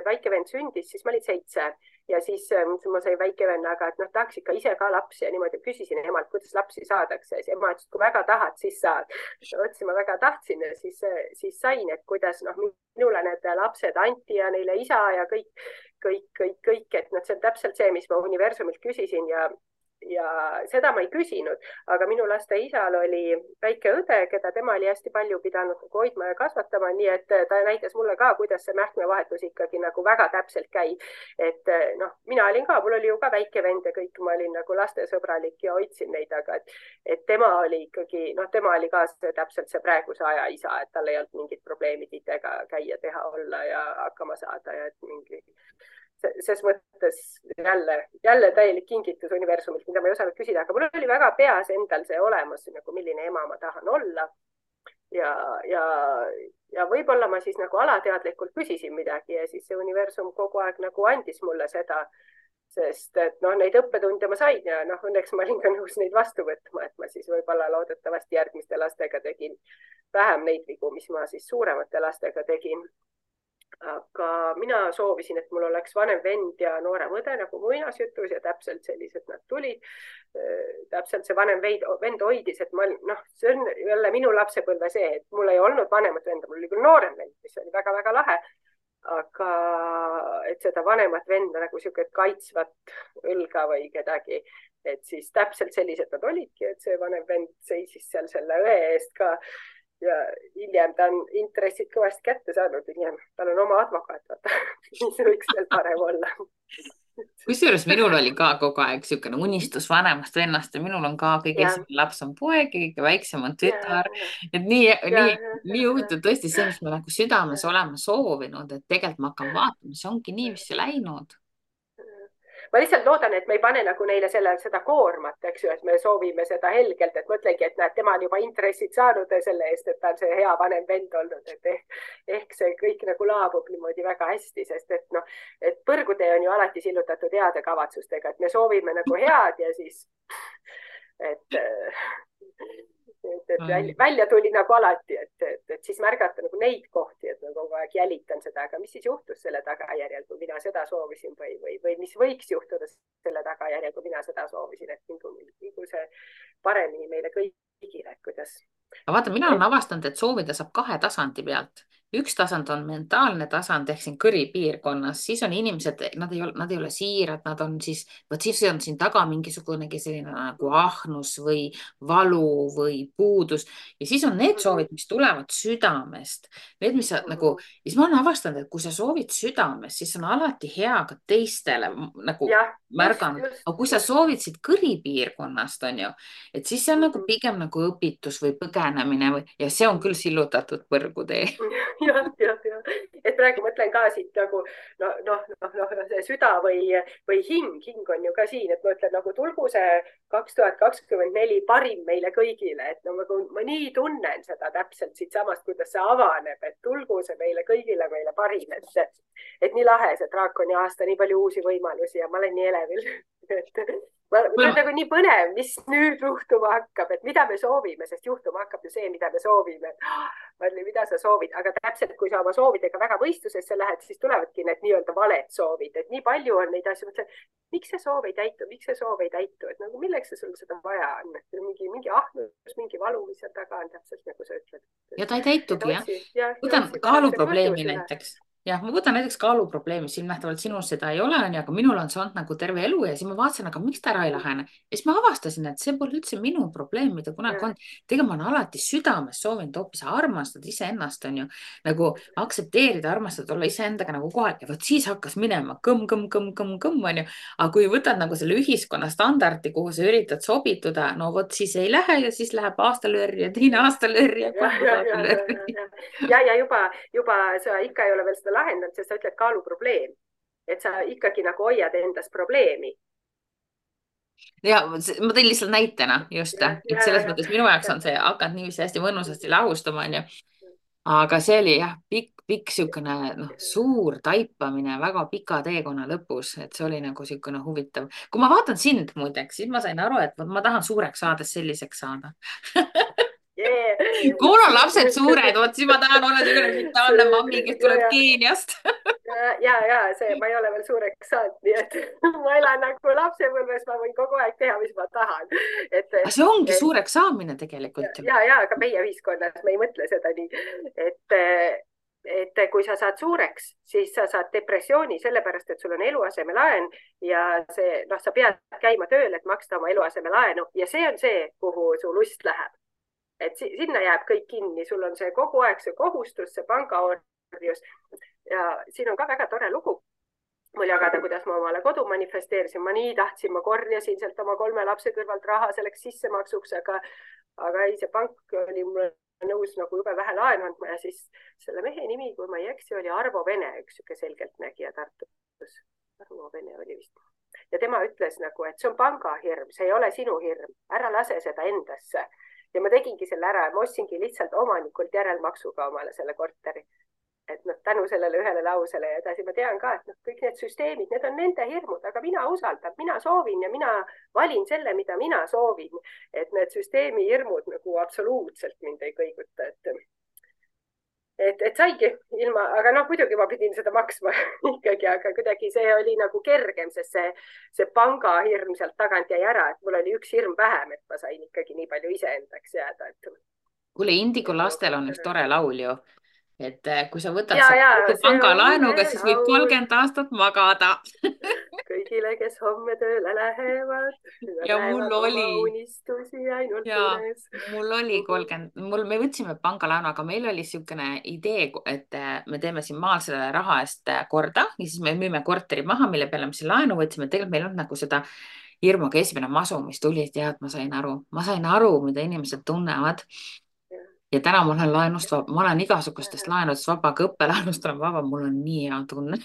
väike vend sündis, siis ma olin 7 ja siis ma sain väike venna, aga et noh, tahaks ikka ise ka lapsi ja niimoodi küsisin emalt, kuidas lapsi saadakse. Siis ema ütles, et kui väga tahad, siis saad. Otsin, ma väga tahtsin ja siis sain, et kuidas noh, minule need lapsed anti ja neile isa ja kõik, et noh, see on täpselt see, mis ma universumilt küsisin ja seda ma ei küsinud, aga minu laste isal oli väike õde, keda tema oli hästi palju pidanud hoidma ja kasvatama, nii et ta näitas mulle ka, kuidas see mähkmevahetus ikkagi nagu väga täpselt käib. Et noh, mina olin ka, mul oli ju ka väike vend ja kõik, ma olin nagu lastesõbralik ja hoidsin neid, aga et tema oli ikkagi, noh, tema oli ka täpselt see praeguse aja isa, et tal ei olnud mingit probleemi titega käia, teha, olla ja hakkama saada ja et mingi ses mõttes jälle täielik kingitus universumilt, mida ma ei osanud küsida, aga mul oli väga peas endal see olemas, nagu milline ema ma tahan olla. Ja võib-olla ma siis nagu alateadlikult küsisin midagi ja siis see universum kogu aeg nagu andis mulle seda, sest et noh, neid õppetunde ma sain ja noh, õnneks ma olin ka nõus neid vastu võtma, et ma siis võib-olla loodetavasti järgmiste lastega tegin vähem neid vigu, mis ma siis suuremate lastega tegin. Aga mina soovisin, et mul oleks vanem vend ja noorem õde nagu muinasjutus ja täpselt sellised nad tulid. Täpselt see vanem vend hoidis, et ma, noh, see on jälle minu lapsepõlve see, et mul ei olnud vanemat venda, mul oli küll noorem vend, mis oli väga-väga lahe. Aga et seda vanemat venda nagu siuke kaitsvat õlga või kedagi, et siis täpselt sellised nad olidki, et see vanem vend seisis seal selle õe eest ka. Ja hiljem ta on intressid kõvasti kätte saanud, hiljem tal on oma advokaat, vaata, mis võiks veel parem olla. Kusjuures minul oli ka kogu aeg niisugune unistus vanemast vennast ja minul on ka kõige esimene laps on poeg ja kõige väiksem on tütar. Et nii huvitav tõesti see, mis ma nagu südames olema soovinud, et tegelikult ma hakkan vaatama, see ongi nii, mis see läinud. Ma lihtsalt loodan, et me ei pane nagu neile seda koormat, eks ju, et me soovime seda helgelt, et mõtlengi, et näed, tema on juba intressid saanud selle eest, et ta on see hea vanem vend olnud, et ehk see kõik nagu laabub niimoodi väga hästi, sest et noh, et põrgutee on ju alati sillutatud heade kavatsustega, et me soovime nagu head ja siis, et välja tuli nagu alati, et siis märgata nagu neid kohti, et ma kogu aeg jälitan seda, aga mis siis juhtus selle tagajärjel, kui mina seda soovisin või mis võiks juhtuda selle tagajärjel, kui mina seda soovisin, et nagu see paremini meile kõigile, kuidas. Aga vaata, mina olen avastanud, et soovida saab 2 tasandi pealt. Üks tasand on mentaalne tasand ehk siin kõripiirkonnas, siis on inimesed, nad ei ole siirad, nad on siis on siin taga mingisugunegi selline nagu ahnus või valu või puudus ja siis on need soovid, mis tulevad südamest. Need, mis nagu, siis ma olen avastanud, et kui sa soovid südamest, siis on alati hea ka teistele nagu märganud, aga kui sa soovid siit kõripiirkonnast, on ju, et siis see on nagu pigem nagu õpitus või põgenemine ja see on küll sillutatud põrgutee. jah, et praegu mõtlen ka siit nagu see süda või hing on ju ka siin, et ma ütlen nagu tulgu see 2024 parim meile kõigile, et no ma nii tunnen seda täpselt siitsamast, kuidas see avaneb, et tulgu see meile kõigile meile parim, et nii lahe see draakoni aasta, nii palju uusi võimalusi ja ma olen nii elevil, ma olen nagu nii põnev, mis nüüd juhtuma hakkab, et mida me soovime, sest juhtuma hakkab ju see, mida me soovime. Marli, mida sa soovid, aga täpselt, kui sa oma soovidega väga võistlusesse lähed, siis tulevadki need nii-öelda valed soovid, et nii palju on neid asju, mõtlen, miks see soov ei täitu, miks see soov ei täitu, et nagu milleks sul seda vaja on, mingi ahnus, mingi valu, mis seal taga on, täpselt nagu sa ütled. Ja ta ei täitugi, jah. Võtan otsi kaaluprobleemi näiteks. Jah, ma võtan näiteks kaaluprobleemi, silmnähtavalt sinul seda ei ole, aga minul on see olnud nagu terve elu ja siis ma vaatasin, aga miks ta ära ei lahene. Ja siis ma avastasin, et see pole üldse minu probleem, mida kunagi on. Tegelikult ma olen alati südames soovinud hoopis armastada iseennast, on ju, nagu aktsepteerida, armastada, olla iseendaga nagu kohal ja vot siis hakkas minema kõmm, on ju. Aga kui võtad nagu selle ühiskonna standardi, kuhu sa üritad sobituda, no vot siis ei lähe ja siis läheb aastalöör ja teine aastalöör ja kolmas aastalöör. Ja juba sa ikka ei ole veel seda lahendanud, sest sa ütled kaaluprobleem, et sa ikkagi nagu hoiad endas probleemi. Ja ma tõin lihtsalt näitena just, et selles mõttes minu jaoks on see hakanud niiviisi hästi mõnusasti lahustama, on ju. Aga see oli jah, pikk siukene suur taipamine väga pika teekonna lõpus, et see oli nagu siukene huvitav. Kui ma vaatan sind muideks, siis ma sain aru, et ma tahan suureks saades selliseks saada. Kui mul on lapsed suured, vot siis ma tahan olla selline vitaalne mammi, kes tuleb Keeniast. Ma ei ole veel suureks saanud, nii et ma elan nagu lapsepõlves, ma võin kogu aeg teha, mis ma tahan. See ongi suureks saamine tegelikult. Aga meie ühiskonnas me ei mõtle seda nii, et kui sa saad suureks, siis sa saad depressiooni sellepärast, et sul on eluasemelaen ja sa pead käima tööl, et maksta oma eluasemelaenu ja see on see, kuhu su lust läheb. Et sinna jääb kõik kinni, sul on see kogu aeg see kohustus, see pangaorjus ja siin on ka väga tore lugu mul jagada, kuidas ma omale kodu manifesteerisin. Ma nii tahtsin, ma korjasin sealt oma 3 lapse kõrvalt raha selleks sissemaksuks, aga ei, see pank oli mulle nõus nagu jube vähe laenu andma ja siis selle mehe nimi, kui ma ei eksi, oli Arvo Vene, üks siuke selgeltnägija Tartus. Arvo Vene oli vist. Ja tema ütles nagu, et see on pangahirm, see ei ole sinu hirm, ära lase seda endasse. Ja ma tegingi selle ära ja ma ostsingi lihtsalt omanikult järelmaksuga omale selle korteri. Et tänu sellele ühele lausele ja edasi ma tean ka, et kõik need süsteemid, need on nende hirmud, aga mina usaldan, mina soovin ja mina valin selle, mida mina soovin. Et need süsteemi hirmud nagu absoluutselt mind ei kõiguta. Et saigi ilma, aga muidugi ma pidin seda maksma ikkagi, aga kuidagi see oli nagu kergem, sest see pangahirm sealt tagant jäi ära, et mul oli üks hirm vähem, et ma sain ikkagi nii palju iseendaks jääda. Kuule, Indigo lastel on üks tore laul ju, et kui sa võtad pangalaenuga, siis võib 30 aastat magada. Kõigile, kes homme tööle lähevad. Ja mul oli. Unistusi ainult unes. Mul oli 30, me võtsime pangalaenu, aga meil oli siukene idee, et me teeme siin maal selle raha eest korda ja siis me müüme korteri maha, mille peale me siin laenu võtsime. Tegelikult meil on nagu seda hirmuga esimene masu, mis tuli, et jah, ma sain aru, mida inimesed tunnevad. Ja täna ma olen laenust vaba, ma olen igasugustest laenudest vaba, ka õppelaenust olen vaba, mul on nii hea tunne.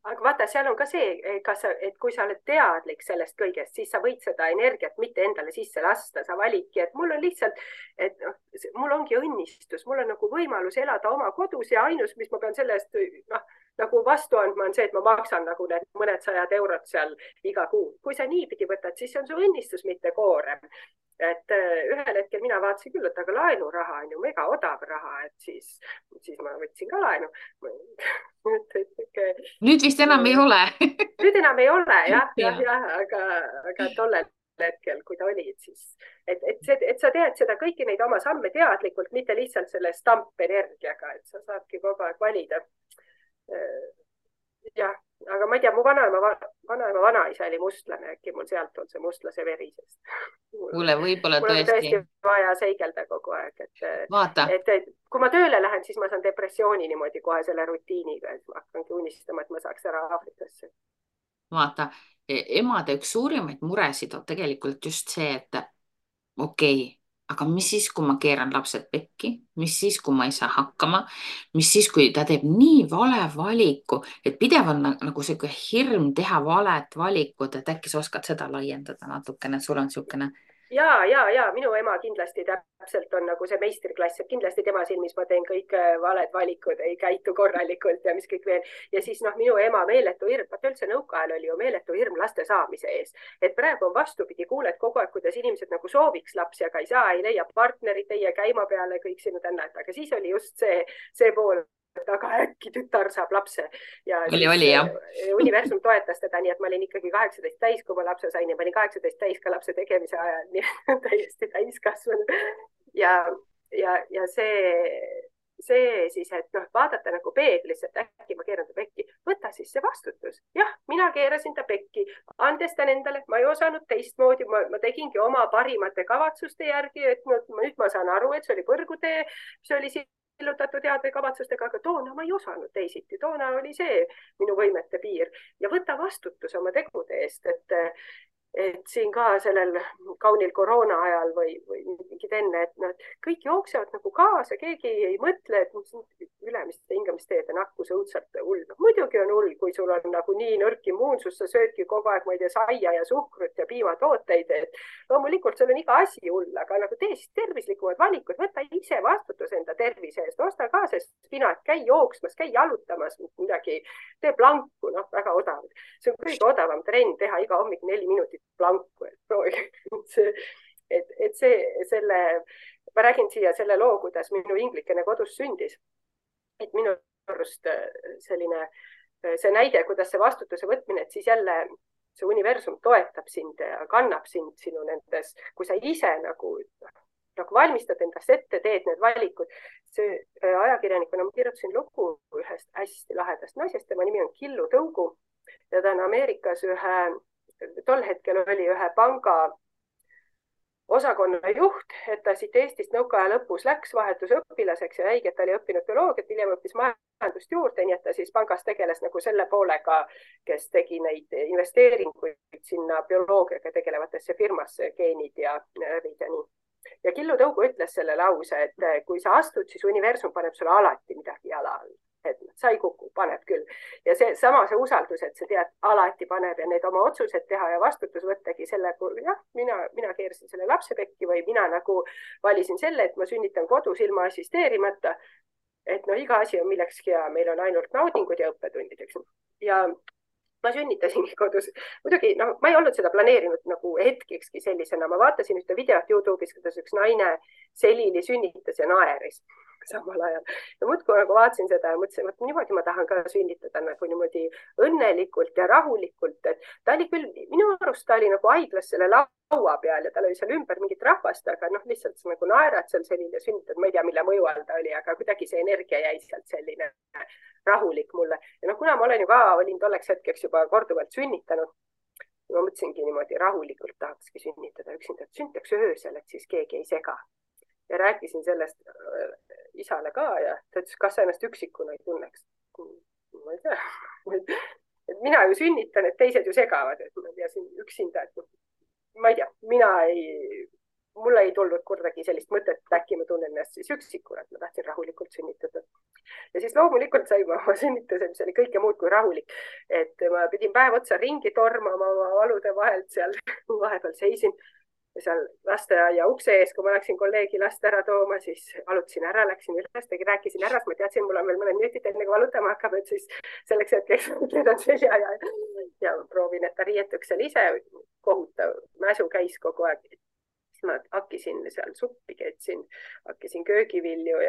Aga vaata, seal on ka see, et kui sa oled teadlik sellest kõigest, siis sa võid seda energiat mitte endale sisse lasta, sa validki, et mul on lihtsalt, et mul ongi õnnistus, mul on nagu võimalus elada oma kodus ja ainus, mis ma pean sellest nagu vastu andma on see, et ma maksan nagu need mõned 100 eurot seal iga kuu. Kui sa niipidi võtad, siis see on su õnnistus, mitte koorem. Et ühel hetkel mina vaatasin küll, et aga laenuraha on ju mega odav raha, et siis ma võtsin ka laenu. Nüüd vist enam ei ole. Nüüd enam ei ole, aga tollel hetkel, kui ta oli, siis, et sa teed seda kõiki neid oma samme teadlikult, mitte lihtsalt selle stampenergiaga, et sa saadki kogu aeg valida. Jah, aga ma ei tea, mu vanaema vanaisa oli mustlane, äkki mul sealt on see mustlase veri, sest Kuule, võib-olla mul on tõesti vaja seigelda kogu aeg, et kui ma tööle lähen, siis ma saan depressiooni niimoodi kohe selle rutiiniga, et ma hakkangi unistama, et ma saaks ära Aafrikasse. Vaata, emade üks suurimaid muresid on tegelikult just see, et okei, aga mis siis, kui ma keeran lapsed pekki, mis siis, kui ma ei saa hakkama, mis siis, kui ta teeb nii vale valiku, et pidev on nagu see hirm teha valet valikut, et äkki sa oskad seda laiendada natukene, sul on siukene. ja minu ema kindlasti täpselt on nagu see meistriklass, et kindlasti tema silmis ma teen kõik valed valikud, ei käitu korralikult ja mis kõik veel. Ja siis noh, minu ema meeletu hirm, vaata üldse nõukaajal oli ju meeletu hirm laste saamise ees, et praegu on vastupidi, kuuled kogu aeg, kuidas inimesed nagu sooviks lapsi, aga ei saa, ei leia partnerit, ei jää käima peale, kõik sinu tännad, aga siis oli just see pool, aga äkki tütar saab lapse ja oli jah. universum toetas teda, nii et ma olin ikkagi 18 täis, kui ma lapse sain ja ma olin 18 täis ka lapse tegemise ajal, nii et täiesti täiskasvanud. Ja see siis, et noh, vaadata nagu peeglisse, et äkki ma keeran ta pekki, võta siis see vastutus. Jah, mina keerasin ta pekki, andestan endale, ma ei osanud teistmoodi, ma tegingi oma parimate kavatsuste järgi, et nüüd ma saan aru, et see oli põrgutee, see oli sillutatud heade kavatsustega, aga toona ma ei osanud teisiti, toona oli see minu võimete piir ja võta vastutus oma tegude eest, et siin ka sellel kaunil koroona ajal või mingid enne, et nad kõik jooksevad nagu kaasa, keegi ei mõtle, et ülemiste hingamisteede nakkus õudselt hull. Muidugi on hull, kui sul on nagu nii nõrk immuunsus, sa söödki kogu aeg, ma ei tea, saia ja suhkrut ja piimatooteid, et loomulikult sul on iga asi hull, aga nagu tee siis tervislikumad valikud, võta ise vastutus enda tervise eest, osta ka see spinat, käi jooksmas, käi jalutamas, midagi, tee planku, noh, väga odav. See on kõige odavam trenn teha iga hommik 4 minutit planku, et proovige ma räägin siia selle loo, kuidas minu inglikene kodus sündis. Et minu arust selline see näide, kuidas see vastutuse võtmine, et siis jälle see universum toetab sind ja kannab sind sinu nendes, kui sa ise nagu valmistad endast ette, teed need valikud. See ajakirjanikuna ma kirjutasin lugu ühest hästi lahedast naisest, tema nimi on Killu Tõugu ja ta on Ameerikas tol hetkel oli ühe panga osakonna juht, et ta siit Eestist nõukaaja lõpus läks vahetusõpilaseks ja jäigi, et ta oli õppinud bioloogiat, hiljem õppis majandust juurde, nii et ta siis pangas tegeles nagu selle poolega, kes tegi neid investeeringuid sinna bioloogiaga tegelevatesse firmasse, geenid ja rõvid ja nii. Ja Killu Tõugu ütles selle lause, et kui sa astud, siis universum paneb sulle alati midagi jala all. Et sa ei kuku, paneb küll. Ja see usaldus, et sa tead, alati paneb ja need oma otsused teha ja vastutus võttagi selle, jah, mina keerasin selle lapse pekki või mina nagu valisin selle, et ma sünnitan kodus ilma assisteerimata. Et no iga asi on millekski ja meil on ainult naudingud ja õppetundid, eks. Ja ma sünnitasingi kodus. Muidugi, no, ma ei olnud seda planeerinud nagu hetkekski sellisena. Ma vaatasin ühte videot YouTube'is, kuidas üks naine selili sünnitas ja naeris samal ajal. Ja muudkui nagu vaatasin seda ja mõtlesin, et niimoodi ma tahan ka sünnitada nagu niimoodi õnnelikult ja rahulikult. Et ta oli küll, minu arust ta oli nagu haiglas selle laua peal ja tal oli seal ümber mingit rahvast, aga noh, lihtsalt nagu naerad seal selline sünnitad. Ma ei tea, mille mõju all ta oli, aga kuidagi see energia jäi sealt selline rahulik mulle. Ja noh, kuna ma olen ju ka, olin tolleks hetkeks juba korduvalt sünnitanud, ma mõtlesingi niimoodi rahulikult tahakski sünnitada üksinda, et sünnitaks öösel, et siis keegi ei sega. Ja rääkisin sellest isale ka ja ta ütles, kas sa ennast üksikuna ei tunneks. Ma ei tea. Et mina ju sünnitan, et teised ju segavad, et ma tean üksinda, et ma ei tea, mulle ei tulnud kordagi sellist mõtet, et äkki ma tunnen ennast siis üksikuna, et ma tahtsin rahulikult sünnitada. Ja siis loomulikult sain ma sünnituse, mis oli kõike muud kui rahulik. Et ma pidin päev otsa ringi tormama oma valude vahelt seal, vahepeal seisin seal lasteaia ukse ees, kui ma läksin kolleegi last ära tooma, siis valutasin ära, läksin üles, rääkisin ära, ma teadsin, mul on veel mõned minutit enne, kui valutama hakkab, et siis selleks hetkeks keedan selja ja proovin, et ta riietuks seal ise, kohutav mäsu käis kogu aeg. Siis ma hakkisin seal suppi, keetsin, hakkisin köögivilju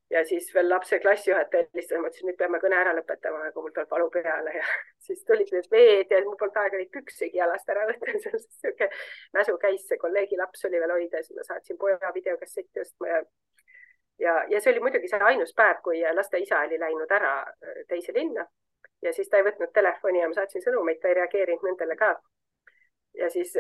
ja siis veel lapse klassijuhataja helistas, ma ütlesin, nüüd peame kõne ära lõpetama, kui mul tuleb valu peale ja siis tulid need veed ja mul polnud aega neid püksigi jalast ära võtta. Siuke mäsu käis, see kolleegi laps oli veel hoida, siis ma saatsin poja videokassetti ostma ja see oli muidugi see ainus päev, kui laste isa oli läinud ära teise linna ja siis ta ei võtnud telefoni ja ma saatsin sõnumeid, ta ei reageerinud nendele ka. Ja siis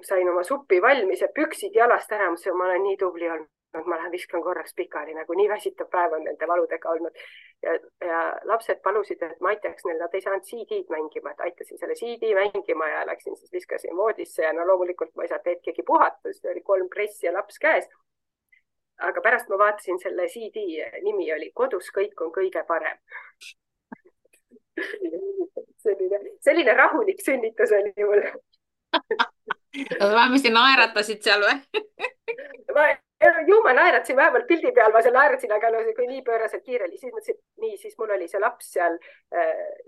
sain oma suppi valmis ja püksid jalast ära, ma olen nii tubli olnud. Ma lähen viskan korraks pikali, nagu nii väsitav päev on nende valudega olnud. Ja lapsed palusid, et ma aitaks neil, nad ei saanud CD-d mängima, et aitasin selle CD mängima ja läksin siis viskasin voodisse ja no loomulikult ma ei saanud hetkegi puhata, siis oli 3 pressi ja laps käes. Aga pärast ma vaatasin selle CD nimi oli Kodus kõik on kõige parem. Selline rahulik sünnitus oli mul. vähemasti naeratasid seal või? ma, ju ma naeratasin vähemalt pildi peal, ma seal naeratasin, aga no kui nii pööraselt kiire oli, siis mõtlesin, et nii, siis mul oli see laps seal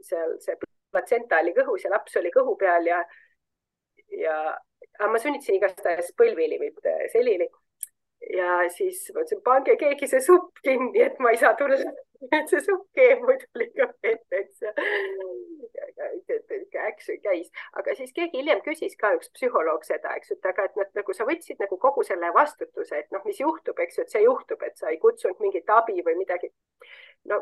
see platsenta oli kõhus ja laps oli kõhu peal aga ma sünnitasin igastahes põlvili, mitte selili. Ja siis mõtlesin, pange keegi see supp kinni, et ma ei saa tulla. Et see supp keeb muidu liiga vetteks. Äkki käis. Aga siis keegi hiljem küsis ka üks psühholoog seda, eks, et aga et nagu sa võtsid nagu kogu selle vastutuse, et noh, mis juhtub, eks ju, et see juhtub, et sa ei kutsunud mingit abi või midagi. No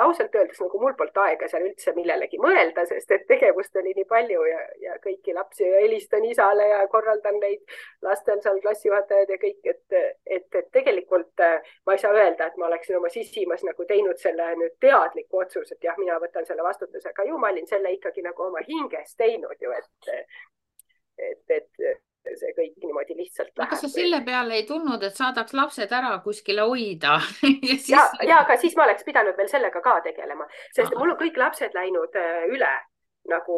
ausalt öeldes nagu mul polnud aega seal üldse millelegi mõelda, sest et tegevust oli nii palju ja kõiki lapsi ja helistan isale ja korraldan neid lastel seal klassijuhatajad ja kõik, et tegelikult ma ei saa öelda, et ma oleksin oma sisimas nagu teinud selle nüüd teadliku otsuse, et jah, mina võtan selle vastutuse, aga ju ma olin selle ikkagi nagu oma hinges teinud ju, et see kõik niimoodi lihtsalt läheb. Aga sa selle peale ei tulnud, et saadaks lapsed ära kuskile hoida ja siis... aga siis ma oleks pidanud veel sellega ka tegelema, sest mul on kõik lapsed läinud üle nagu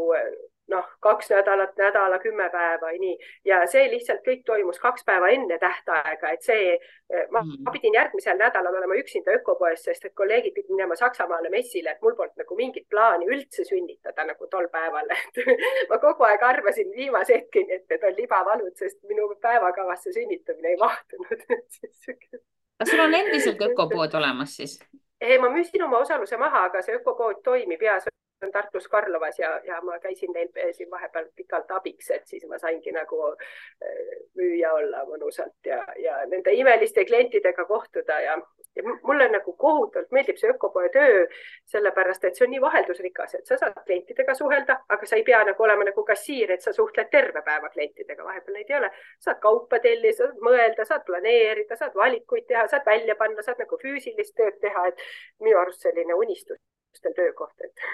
2 nädalat, nädala, 10 päeva ja nii. Ja see lihtsalt kõik toimus 2 päeva enne tähtaega, et ma pidin järgmisel nädalal olema üksinda ökopoes, sest et kolleegid pidid minema Saksamaale messile, et mul polnud nagu mingit plaani üldse sünnitada nagu tol päeval. Ma kogu aeg arvasin viimase hetkeni, et need on libavalud, sest minu päevakavasse sünnitamine ei mahtunud. Kas sul on endiselt ökopood olemas siis? Ma müüsin oma osaluse maha, aga see ökopood toimib ja on Tartus Karlovas ja ma käisin neil siin vahepeal pikalt abiks, et siis ma saingi nagu müüa olla mõnusalt ja nende imeliste klientidega kohtuda ja mulle nagu kohutavalt meeldib see ökopoe töö, sellepärast, et see on nii vaheldusrikas, et sa saad klientidega suhelda, aga sa ei pea nagu olema nagu kassiir, et sa suhtled terve päeva klientidega, vahepeal neid ei ole. Saad kaupa tellida, saad mõelda, saad planeerida, saad valikuid teha, saad välja panna, saad nagu füüsilist tööd teha, et minu arust selline unistustel töökoht, et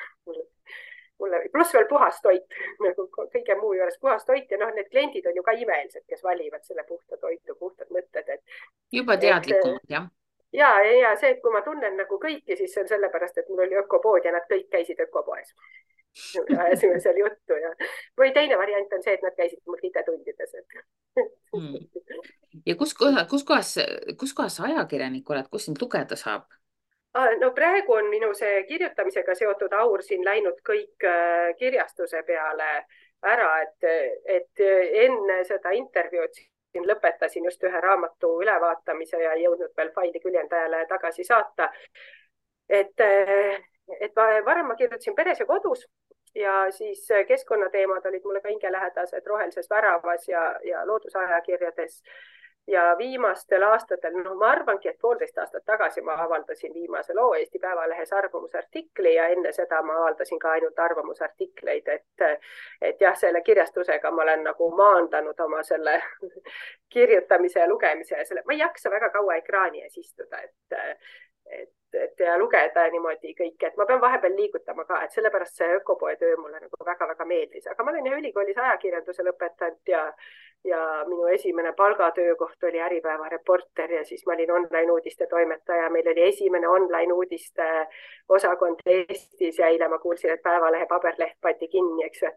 mulle pluss veel puhas toit, nagu kõige muu juures puhas toit ja need kliendid on ju ka imelised, kes valivad selle puhta toitu, puhtad mõtted. Juba teadlikumad, jah? Ja see, et kui ma tunnen nagu kõiki, siis see on sellepärast, et mul oli ökopood ja nad kõik käisid ökopoes. Ajasime seal juttu või teine variant on see, et nad käisid mul IT-tundides. Ja kus kohas sa ajakirjanik oled, kus sind lugeda saab? No praegu on minu see kirjutamisega seotud aur siin läinud kõik kirjastuse peale ära, et enne seda intervjuud siin lõpetasin just ühe raamatu ülevaatamise ja jõudnud veel faili küljendajale tagasi saata. Et varem ma kirjutasin Peres ja kodus ja siis keskkonnateemad olid mulle ka hingelähedased Rohelises väravas ja loodusajakirjades. Ja viimastel aastatel, ma arvangi, et 1,5 aastat tagasi ma avaldasin viimase loo Eesti Päevalehes arvamusartikli ja enne seda ma avaldasin ka ainult arvamusartikleid, et jah, selle kirjastusega ma olen nagu maandanud oma selle kirjutamise ja lugemise ja ma ei jaksa väga kaua ekraani ees istuda, et lugeda niimoodi kõike, et ma pean vahepeal liigutama ka, et sellepärast see ökopoe töö mulle nagu väga-väga meeldis, aga ma olen ülikoolis ajakirjanduse lõpetanud ja minu esimene palgatöökoht oli Äripäeva reporter ja siis ma olin online uudiste toimetaja. Meil oli esimene online uudiste osakond Eestis ja eile ma kuulsin, et Päevalehe paberleht pandi kinni, eks ju, et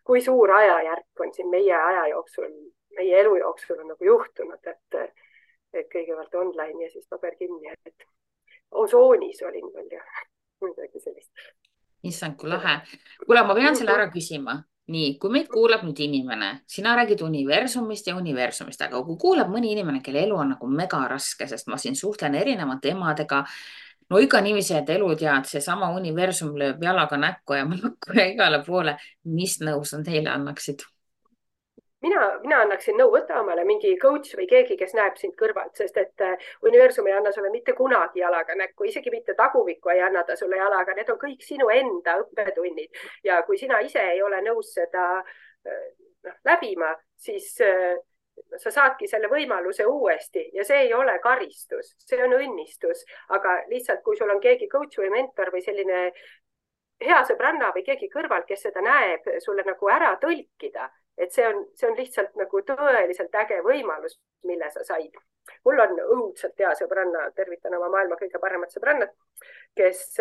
kui suur ajajärk on siin meie aja jooksul, meie elu jooksul on nagu juhtunud, et kõigepealt online ja siis paber kinni, et Osoonis olin veel ja midagi sellist. Issand, kui lahe. Kuule, ma pean selle ära küsima. Nii, kui meid kuulab nüüd inimene, sina räägid universumist ja universumist, aga kui kuulab mõni inimene, kelle elu on nagu mega raske, sest ma siin suhtlen erinevate emadega, no ikka niiviisi, et elu tead, see sama universum lööb jalaga näkku ja mõnakku ja igale poole, mis nõu sa teile annaksid? Mina annaksin nõu, võtta omale mingi coach või keegi, kes näeb sind kõrvalt, sest et universum ei anna sulle mitte kunagi jalaga näkku, isegi mitte taguvikku ei anna ta sulle jalaga, need on kõik sinu enda õppetunnid ja kui sina ise ei ole nõus seda läbima, siis sa saadki selle võimaluse uuesti ja see ei ole karistus, see on õnnistus, aga lihtsalt kui sul on keegi coach või mentor või selline hea sõbranna või keegi kõrval, kes seda näeb, sulle nagu ära tõlkida, et see on lihtsalt nagu tõeliselt äge võimalus, mille sa said. Mul on õudselt hea sõbranna, tervitan oma maailma kõige paremat sõbrannat, kes,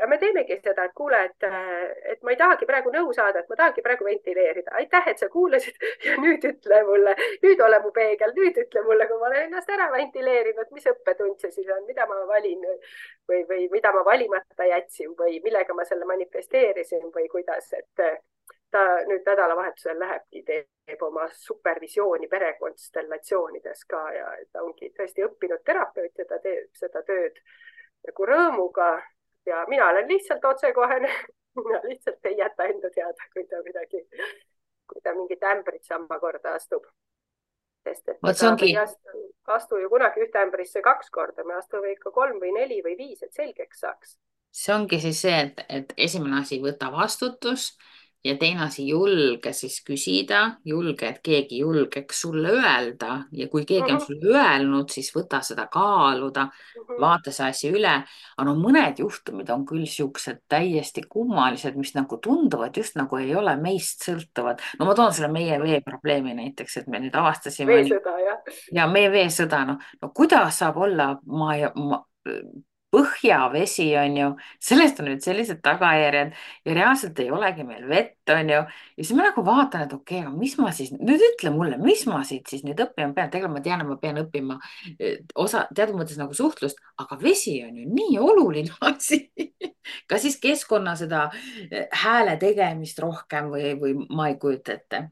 me teemegi seda, et kuule, et ma ei tahagi praegu nõu saada, et ma tahangi praegu ventileerida. Aitäh, et sa kuulasid ja nüüd ütle mulle, nüüd ole mu peegel, nüüd ütle mulle, kui ma olen ennast ära ventileerinud, mis õppetund see siis on, mida ma valin või mida ma valimata jätsin või millega ma selle manifesteerisin või kuidas, et ta nüüd nädalavahetusel lähebki, teeb oma supervisiooni perekonstellatsioonides ka ja ta ongi tõesti õppinud terapeut ja ta teeb seda tööd nagu rõõmuga ja mina olen lihtsalt otsekohene. Mina lihtsalt ei jäta enda teada, kui ta mingit ämbrit samma korda astub. Sest et me ei astu ju kunagi ühte ämbrisse 2 korda, me astume ikka 3 või 4 või 5, et selgeks saaks. See ongi siis see, et esimene asi võta vastutus ja teine asi julge siis küsida, julge, et keegi julgeks sulle öelda ja kui keegi on sulle öelnud, siis võta seda kaaluda, vaata see asi üle. Aga no mõned juhtumid on küll siuksed täiesti kummalised, mis nagu tunduvad just nagu ei ole meist sõltuvad. No ma toon selle meie veeprobleemi näiteks, et me nüüd avastasime. Veesõda, jah. Ja meie veesõda, no kuidas saab olla põhjavesi on ju, sellest on nüüd sellised tagajärjed ja reaalselt ei olegi meil vett on ju. Ja siis ma nagu vaatan, et okei, aga mis ma siis, nüüd ütle mulle, mis ma siit siis nüüd õppima pean, tegelikult ma tean, et ma pean õppima teatud mõttes nagu suhtlust, aga vesi on ju nii oluline asi. Ka siis keskkonna seda hääle tegemist rohkem või ma ei kujuta ette.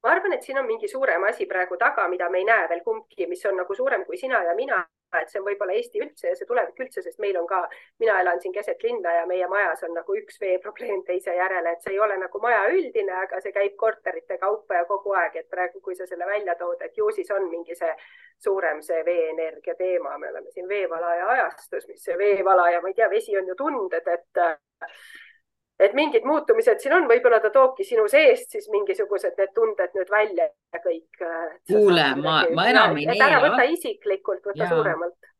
Ma arvan, et siin on mingi suurem asi praegu taga, mida me ei näe veel kumbki, mis on nagu suurem kui sina ja mina. Et see on võib-olla Eesti üldse ja see tulevik üldse, sest meil on ka, mina elan siin keset linna ja meie majas on nagu üks veeprobleem teise järele, et see ei ole nagu maja üldine, aga see käib korterite kaupa ja kogu aeg, et praegu, kui sa selle välja tood, et ju siis on mingi see suurem see veeenergia teema. Me oleme siin veevalaja ajastus, mis see veevalaja, ma ei tea, vesi on ju tunded, et mingid muutumised siin on, võib-olla ta toobki sinu seest siis mingisugused need tunded nüüd välja ja kõik. Kuule, ma enam ei neela. Ära võta isiklikult, võta suuremalt.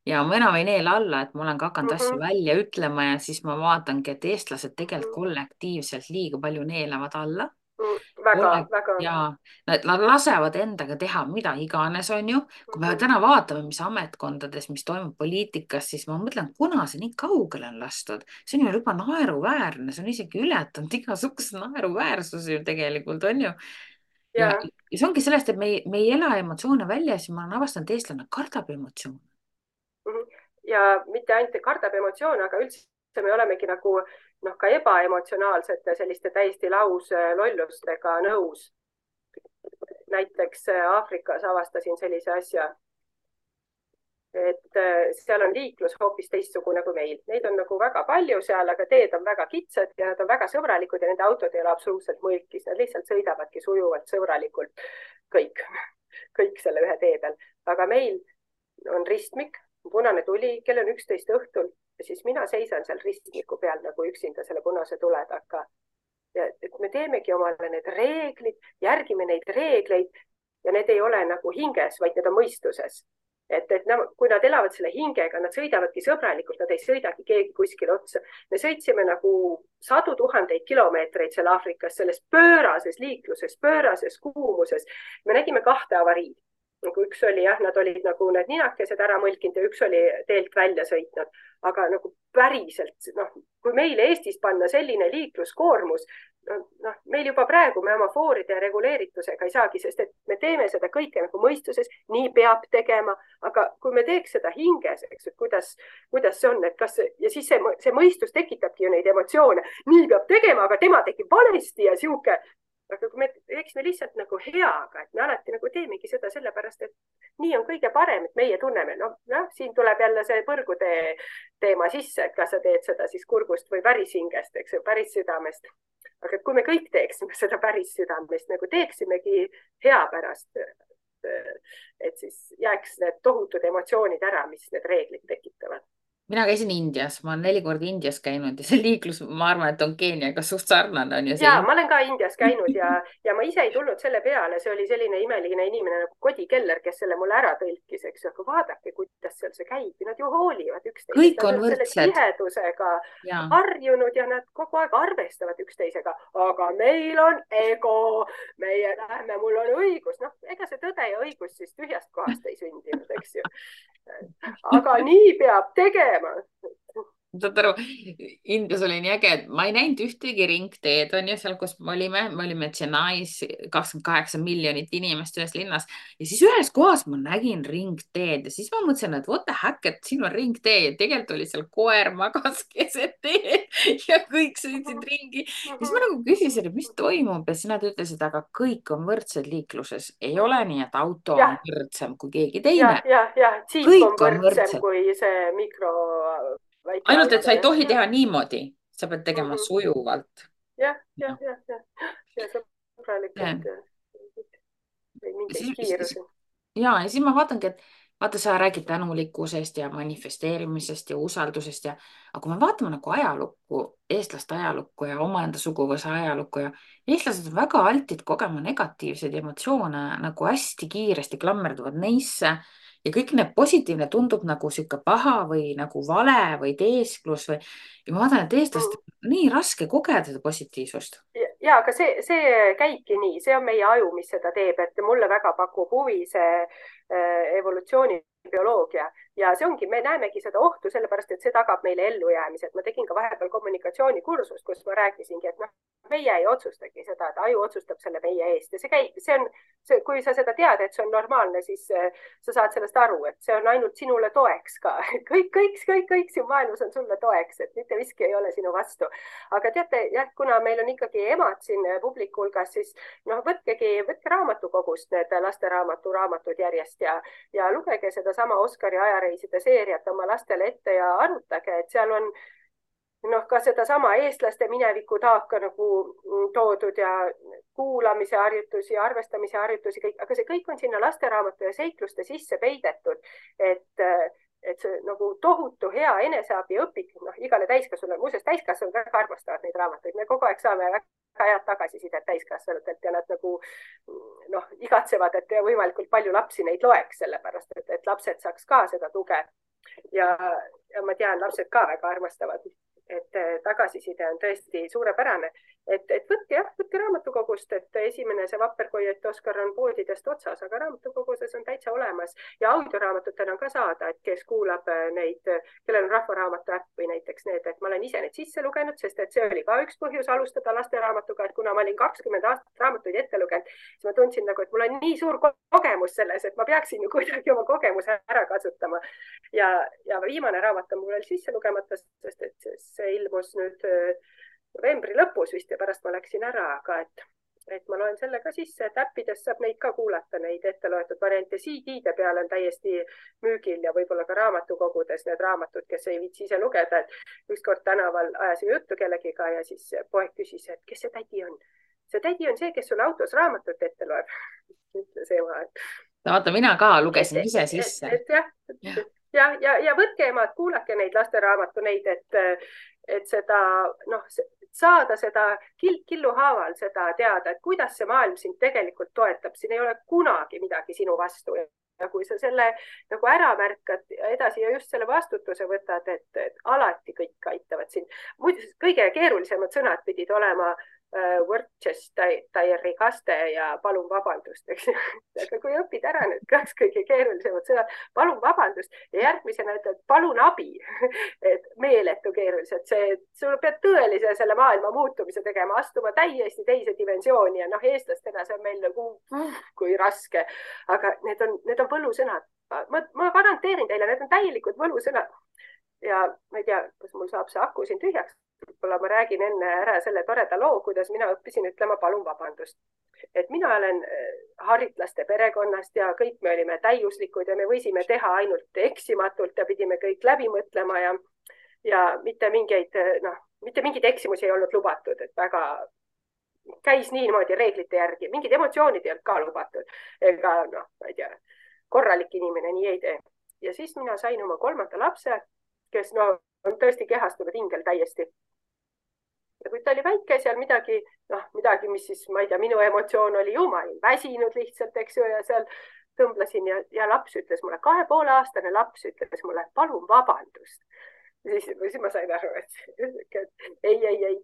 Ja ma enam ei neela alla, et ma olen ka hakanud asju välja ütlema ja siis ma vaatangi, et eestlased tegelikult kollektiivselt liiga palju neelavad alla. Väga. Ja nad lasevad endaga teha mida iganes on ju. Kui me täna vaatame, mis ametkondades, mis toimub poliitikas, siis ma mõtlen, kuna see nii kaugele on lastud. See on ju juba naeruväärne, see on isegi ületanud igasuguse naeruväärsusi ju tegelikult on ju. Ja see ongi sellest, et me ei ela emotsioone välja, siis ma olen avastanud, et eestlane kardab emotsioone. Ja mitte ainult kardab emotsioone, aga üldse me olemegi nagu ka ebaemotsionaalsete selliste täiesti lauslollustega nõus. Näiteks Aafrikas avastasin sellise asja, et seal on liiklus hoopis teistsugune kui meil. Neid on nagu väga palju seal, aga teed on väga kitsad ja nad on väga sõbralikud ja nende autod ei ole absoluutselt mõlkis. Nad lihtsalt sõidavadki sujuvalt sõbralikult kõik selle ühe tee peal. Aga meil on ristmik, punane tuli, kell on 11 õhtul ja siis mina seisan seal ristmiku peal nagu üksinda selle punase tule taga. Ja et me teemegi omale need reeglid, järgime neid reegleid ja need ei ole nagu hinges, vaid need on mõistuses. Et kui nad elavad selle hingega, nad sõidavadki sõbralikult, nad ei sõidagi keegi kuskil otsa. Me sõitsime nagu 100 000 kilomeetreid seal Aafrikas, selles pöörases liikluses, pöörases kuumuses. Me nägime 2 avariid. Nagu üks oli nad olid nagu need ninakesed ära mõlkinud ja üks oli teelt välja sõitnud. Aga nagu päriselt, kui meil Eestis panna selline liikluskoormus, meil juba praegu me oma fooride reguleeritusega ei saagi, sest et me teeme seda kõike nagu mõistuses, nii peab tegema, aga kui me teeks seda hinges, eks, et kuidas see on, et ja siis see mõistus tekitabki ju neid emotsioone, nii peab tegema, aga tema tegi valesti ja siuke. Aga kui me teeksime lihtsalt nagu heaga, et me alati nagu teemegi seda sellepärast, et nii on kõige parem, et meie tunneme. Siin tuleb jälle see põrgutee teema sisse, et kas sa teed seda siis kurgust või päris hingest, eks ju, päris südamest. Aga kui me kõik teeksime seda päris südamest, nagu teeksimegi hea pärast, et siis jääks need tohutud emotsioonid ära, mis need reeglid tekitavad. mina käisin Indias, ma olen 4 korda Indias käinud ja see liiklus, ma arvan, et on Keeniaga suht sarnane on ju ja see. ma olen ka Indias käinud ja ma ise ei tulnud selle peale, see oli selline imeline inimene nagu Kodi Keller, kes selle mulle ära tõlkis, eks ju, aga vaadake, kuidas seal see käib, nad ju hoolivad üksteisest, kõik nad on on selle võrdsed tihedusega ja harjunud ja nad kogu aeg arvestavad üksteisega, aga meil on ego, meie lähme, mul on õigus, noh, ega see tõde ja õigus siis tühjast kohast ei sündinud, eks ju. aga nii peab tegema. saad aru, Indias oli nii äge, et ma ei näinud ühtegi ringteed, on ju, seal, kus me olime Chennais, 28 miljonit inimest ühes linnas ja siis ühes kohas ma nägin ringteed ja siis ma mõtlesin, et what the heck, et siin on ringtee ja tegelikult oli seal koer magas keset teed ja kõik sõitsid ringi. siis ma nagu küsisin, et mis toimub ja siis nad ütlesid, aga kõik on võrdsed liikluses, ei ole nii, et auto on jah, võrdsem kui keegi teine, džiip on kõik on võrdsem võrdsed. kui see väike ainult, et auto, sa ei jah, tohi teha niimoodi, sa pead tegema jah, sujuvalt. ja sõbralikult või Ja mingeid siis, kiirusi. ja siis ma vaatangi, et vaata, sa räägid tänulikkusest ja manifesteerimisest ja usaldusest aga kui me vaatame nagu ajalukku, eestlaste ajalukku ja omaenda suguvõsa ajalukku ja eestlased on väga altid kogema negatiivseid emotsioone nagu hästi kiiresti klammerduvad neisse ja kõik need positiivne tundub nagu sihuke paha või nagu vale või teesklus ja ma vaatan, et eestlastel on nii raske kogeda seda positiivsust. ja aga see käibki nii, see on meie aju, mis seda teeb, et mulle väga pakub huvi see evolutsioonibioloogia ja see ongi, me näemegi seda ohtu sellepärast, et see tagab meile ellujäämise, et ma tegin ka vahepeal kommunikatsioonikursust, kus ma rääkisingi, et noh, meie ei otsustagi seda, et aju otsustab selle meie eest ja see käib, kui sa seda tead, et see on normaalne, siis sa saad sellest aru, et see on ainult sinule toeks ka. kõik siin maailmas on sulle toeks, et mitte miski ei ole sinu vastu. aga teate, jah, kuna meil on ikkagi emad siin publiku hulgas, siis noh, võtke raamatukogust need lasteraamatud järjest ja lugege sedasama Oskari ajareiside seeriat oma lastele ette ja arutage, et seal on noh, ka sedasama eestlaste mineviku taaka nagu toodud ja kuulamise harjutusi, arvestamise harjutusi, kõik, aga see kõik on sinna lasteraamatu ja seikluste sisse peidetud, et see nagu tohutu hea eneseabiõpik, noh, igale täiskasvanule, muuseas täiskasvanud väga armastavad neid raamatuid, me kogu aeg saame väga head tagasisidet täiskasvanutelt ja nad nagu noh, igatsevad, et võimalikult palju lapsi neid loeks, sellepärast et lapsed saaks ka seda tuge ja ma tean, lapsed ka väga armastavad, et tagasiside on tõesti suurepärane, et võtke raamatukogust, et esimene see Vapperkoiet Oskar on poodidest otsas, aga raamatukoguses on täitsa olemas ja audioraamatutena on ka saada, et kes kuulab neid, kellel on Rahvaraamatu äpp või näiteks need, et ma olen ise need sisse lugenud, sest et see oli ka üks põhjus alustada lasteraamatuga, et kuna ma olin 20 aastat raamatuid ette lugenud, siis ma tundsin nagu, et mul on nii suur kogemus selles, et ma peaksin ju kuidagi oma kogemuse ära kasutama. Ja viimane raamat on mul veel sisse lugemata, sest et see ilmus nüüd novembri lõpus vist ja pärast ma läksin ära, aga et ma loen selle ka sisse, et äppidest saab neid ka kuulata, neid ette loetud variante. CD-de peal on täiesti müügil ja võib-olla ka raamatukogudes need raamatud, kes ei viitsi ise lugeda, et ükskord tänaval ajasin juttu kellegiga ja siis poeg küsis, et kes see tädi on. See tädi on see, kes sulle autos raamatut ette loeb, ütles ema. vaata, mina ka lugesin ise sisse. Ja võtke emad, kuulake neid lasteraamatu neid, et seda, noh, saada seda killu haaval seda teada, et kuidas see maailm sind tegelikult toetab, siin ei ole kunagi midagi sinu vastu. Ja kui sa selle nagu ära märkad edasi ja just selle vastutuse võtad, et alati kõik aitavad sind. Muidu kõige keerulisemad sõnad pidid olema Worcestershire kaste ja palun vabandust, eks ju. Aga kui õpid ära need kaks kõige keerulisemad sõnad, palun vabandust ja järgmisena ütled palun abi, et meeletu keerulised, sul pead tõelise selle maailma muutumise tegema, astuma täiesti teise dimensiooni ja noh, eestlastena see on meil nagu kui raske, aga need on võlusõnad. Ma garanteerin teile, need on täielikud võlusõnad ja ma ei tea, kas mul saab see aku siin tühjaks. Võib-olla ma räägin enne ära selle toreda loo, kuidas mina õppisin ütlema palun vabandust. Et mina olen haritlaste perekonnast ja kõik me olime täiuslikud ja me võisime teha ainult eksimatult ja pidime kõik läbi mõtlema ja mitte mingeid eksimusi ei olnud lubatud, et väga käis niimoodi reeglite järgi, mingid emotsioonid ei olnud ka lubatud. Ega noh, ma ei tea, korralik inimene nii ei tee. Ja siis mina sain oma 3. lapse kes no on tõesti kehastunud ingel täiesti. ja kui ta oli väike, seal midagi, noh, midagi, mis siis, ma ei tea, minu emotsioon oli ju, ma olin väsinud lihtsalt, eks ju, ja seal tõmblesin ja laps ütles mulle, 2,5-aastane laps ütles mulle, palun vabandust. Siis ma sain aru, et ei,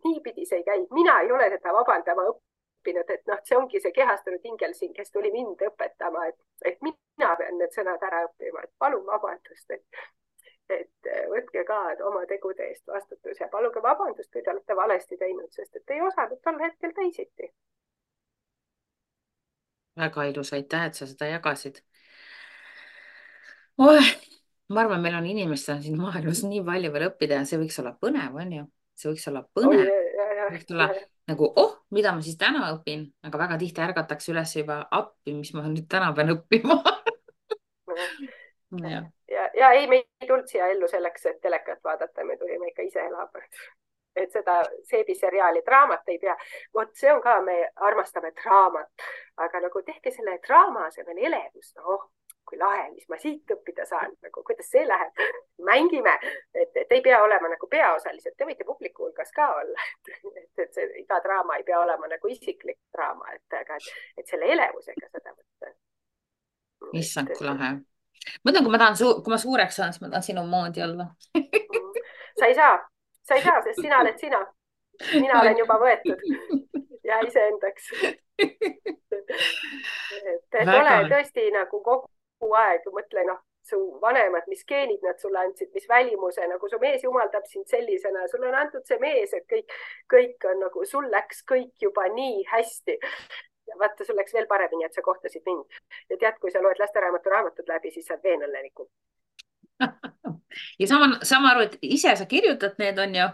niipidi see ei käi. Mina ei ole seda vabandama õppinud, et noh, see ongi see kehastunud ingel siin, kes tuli mind õpetama, et mina pean need sõnad ära õppima, et palun vabandust, et võtke ka oma tegude eest vastutus ja paluge vabandust, kui te olete valesti teinud, sest et ei osanud tol hetkel teisiti. väga ilus, aitäh, et sa seda jagasid. Oh, ma arvan, meil on inimestel siin maailmas nii palju veel õppida ja see võiks olla põnev, on ju? See võiks olla Oi, põnev. Võiks olla nagu, mida ma siis täna õpin, aga väga tihti ärgatakse üles juba appi, mis ma nüüd täna pean õppima. ja ei, me ei tulnud siia ellu selleks, et telekat vaadata, me tulime ikka ise elama. Et seda seebiseriaali draamat ei pea. Vot see on ka, me armastame draamat, aga nagu tehke selle draama asemel elevus, noh, kui lahe, mis ma siit õppida saan, nagu kuidas see läheb. Mängime, et ei pea olema nagu peaosalised, te võite publiku hulgas ka olla, et see iga draama ei pea olema nagu isiklik draama, et selle elevusega seda võtta. Issand, kui lahe. Mõtlen, kui ma suureks saan, siis ma tahan sinu moodi olla. Sa ei saa, sest sina oled sina. Mina olen juba võetud ja iseendaks. Et ole tõesti nagu kogu aeg, mõtle, noh, su vanemad, mis geenid nad sulle andsid, mis välimuse, nagu su mees jumaldab sind sellisena, sulle on antud see mees, et kõik on nagu, sul läks kõik juba nii hästi. Ja vaata, sul läks veel paremini, et sa kohtasid mind. Ja tead, kui sa loed lasteraamatu raamatut läbi, siis saad veel õnnelikum. Ja sama aru, et ise sa kirjutad need, on ju?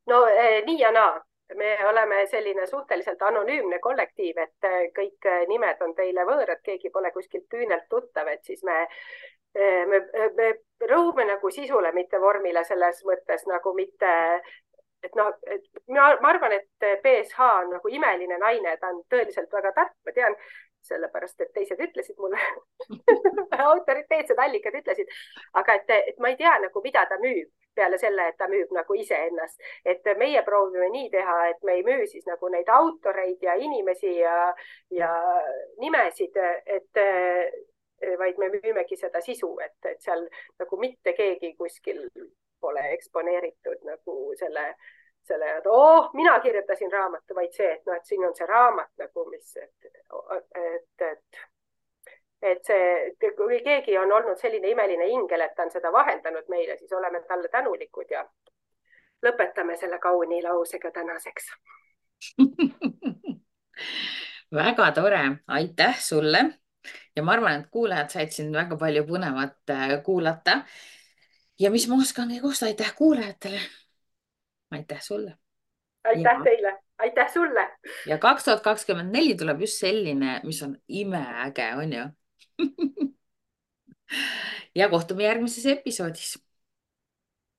No nii ja naa. Me oleme selline suhteliselt anonüümne kollektiiv, et kõik nimed on teile võõrad, keegi pole kuskilt küünelt tuttav, et siis me rõhume nagu sisule, mitte vormile selles mõttes nagu mitte, et noh, ma arvan, et BSH on nagu imeline naine, ta on tõeliselt väga tark, ma tean, sellepärast, et teised ütlesid mulle, autoriteetsed allikad ütlesid, aga et ma ei tea nagu, mida ta müüb peale selle, et ta müüb nagu iseennast, et meie proovime nii teha, et me ei müü siis nagu neid autoreid ja inimesi ja nimesid, vaid me müümegi seda sisu, et seal nagu mitte keegi kuskil pole eksponeeritud nagu selle, et mina kirjutasin raamatu, vaid see, et noh, et siin on see raamat nagu, mis, et see, kui keegi on olnud selline imeline ingel, et ta on seda vahendanud meile, siis oleme talle tänulikud ja lõpetame selle kauni lausega tänaseks. Väga tore, aitäh sulle. Ja ma arvan, et kuulajad said siin väga palju põnevat kuulata. Ja mis ma oskangi kosta, aitäh kuulajatele. Aitäh sulle. Aitäh teile, aitäh sulle. Ja 2024 tuleb just selline, mis on imeäge, on ju? Ja kohtume järgmises episoodis.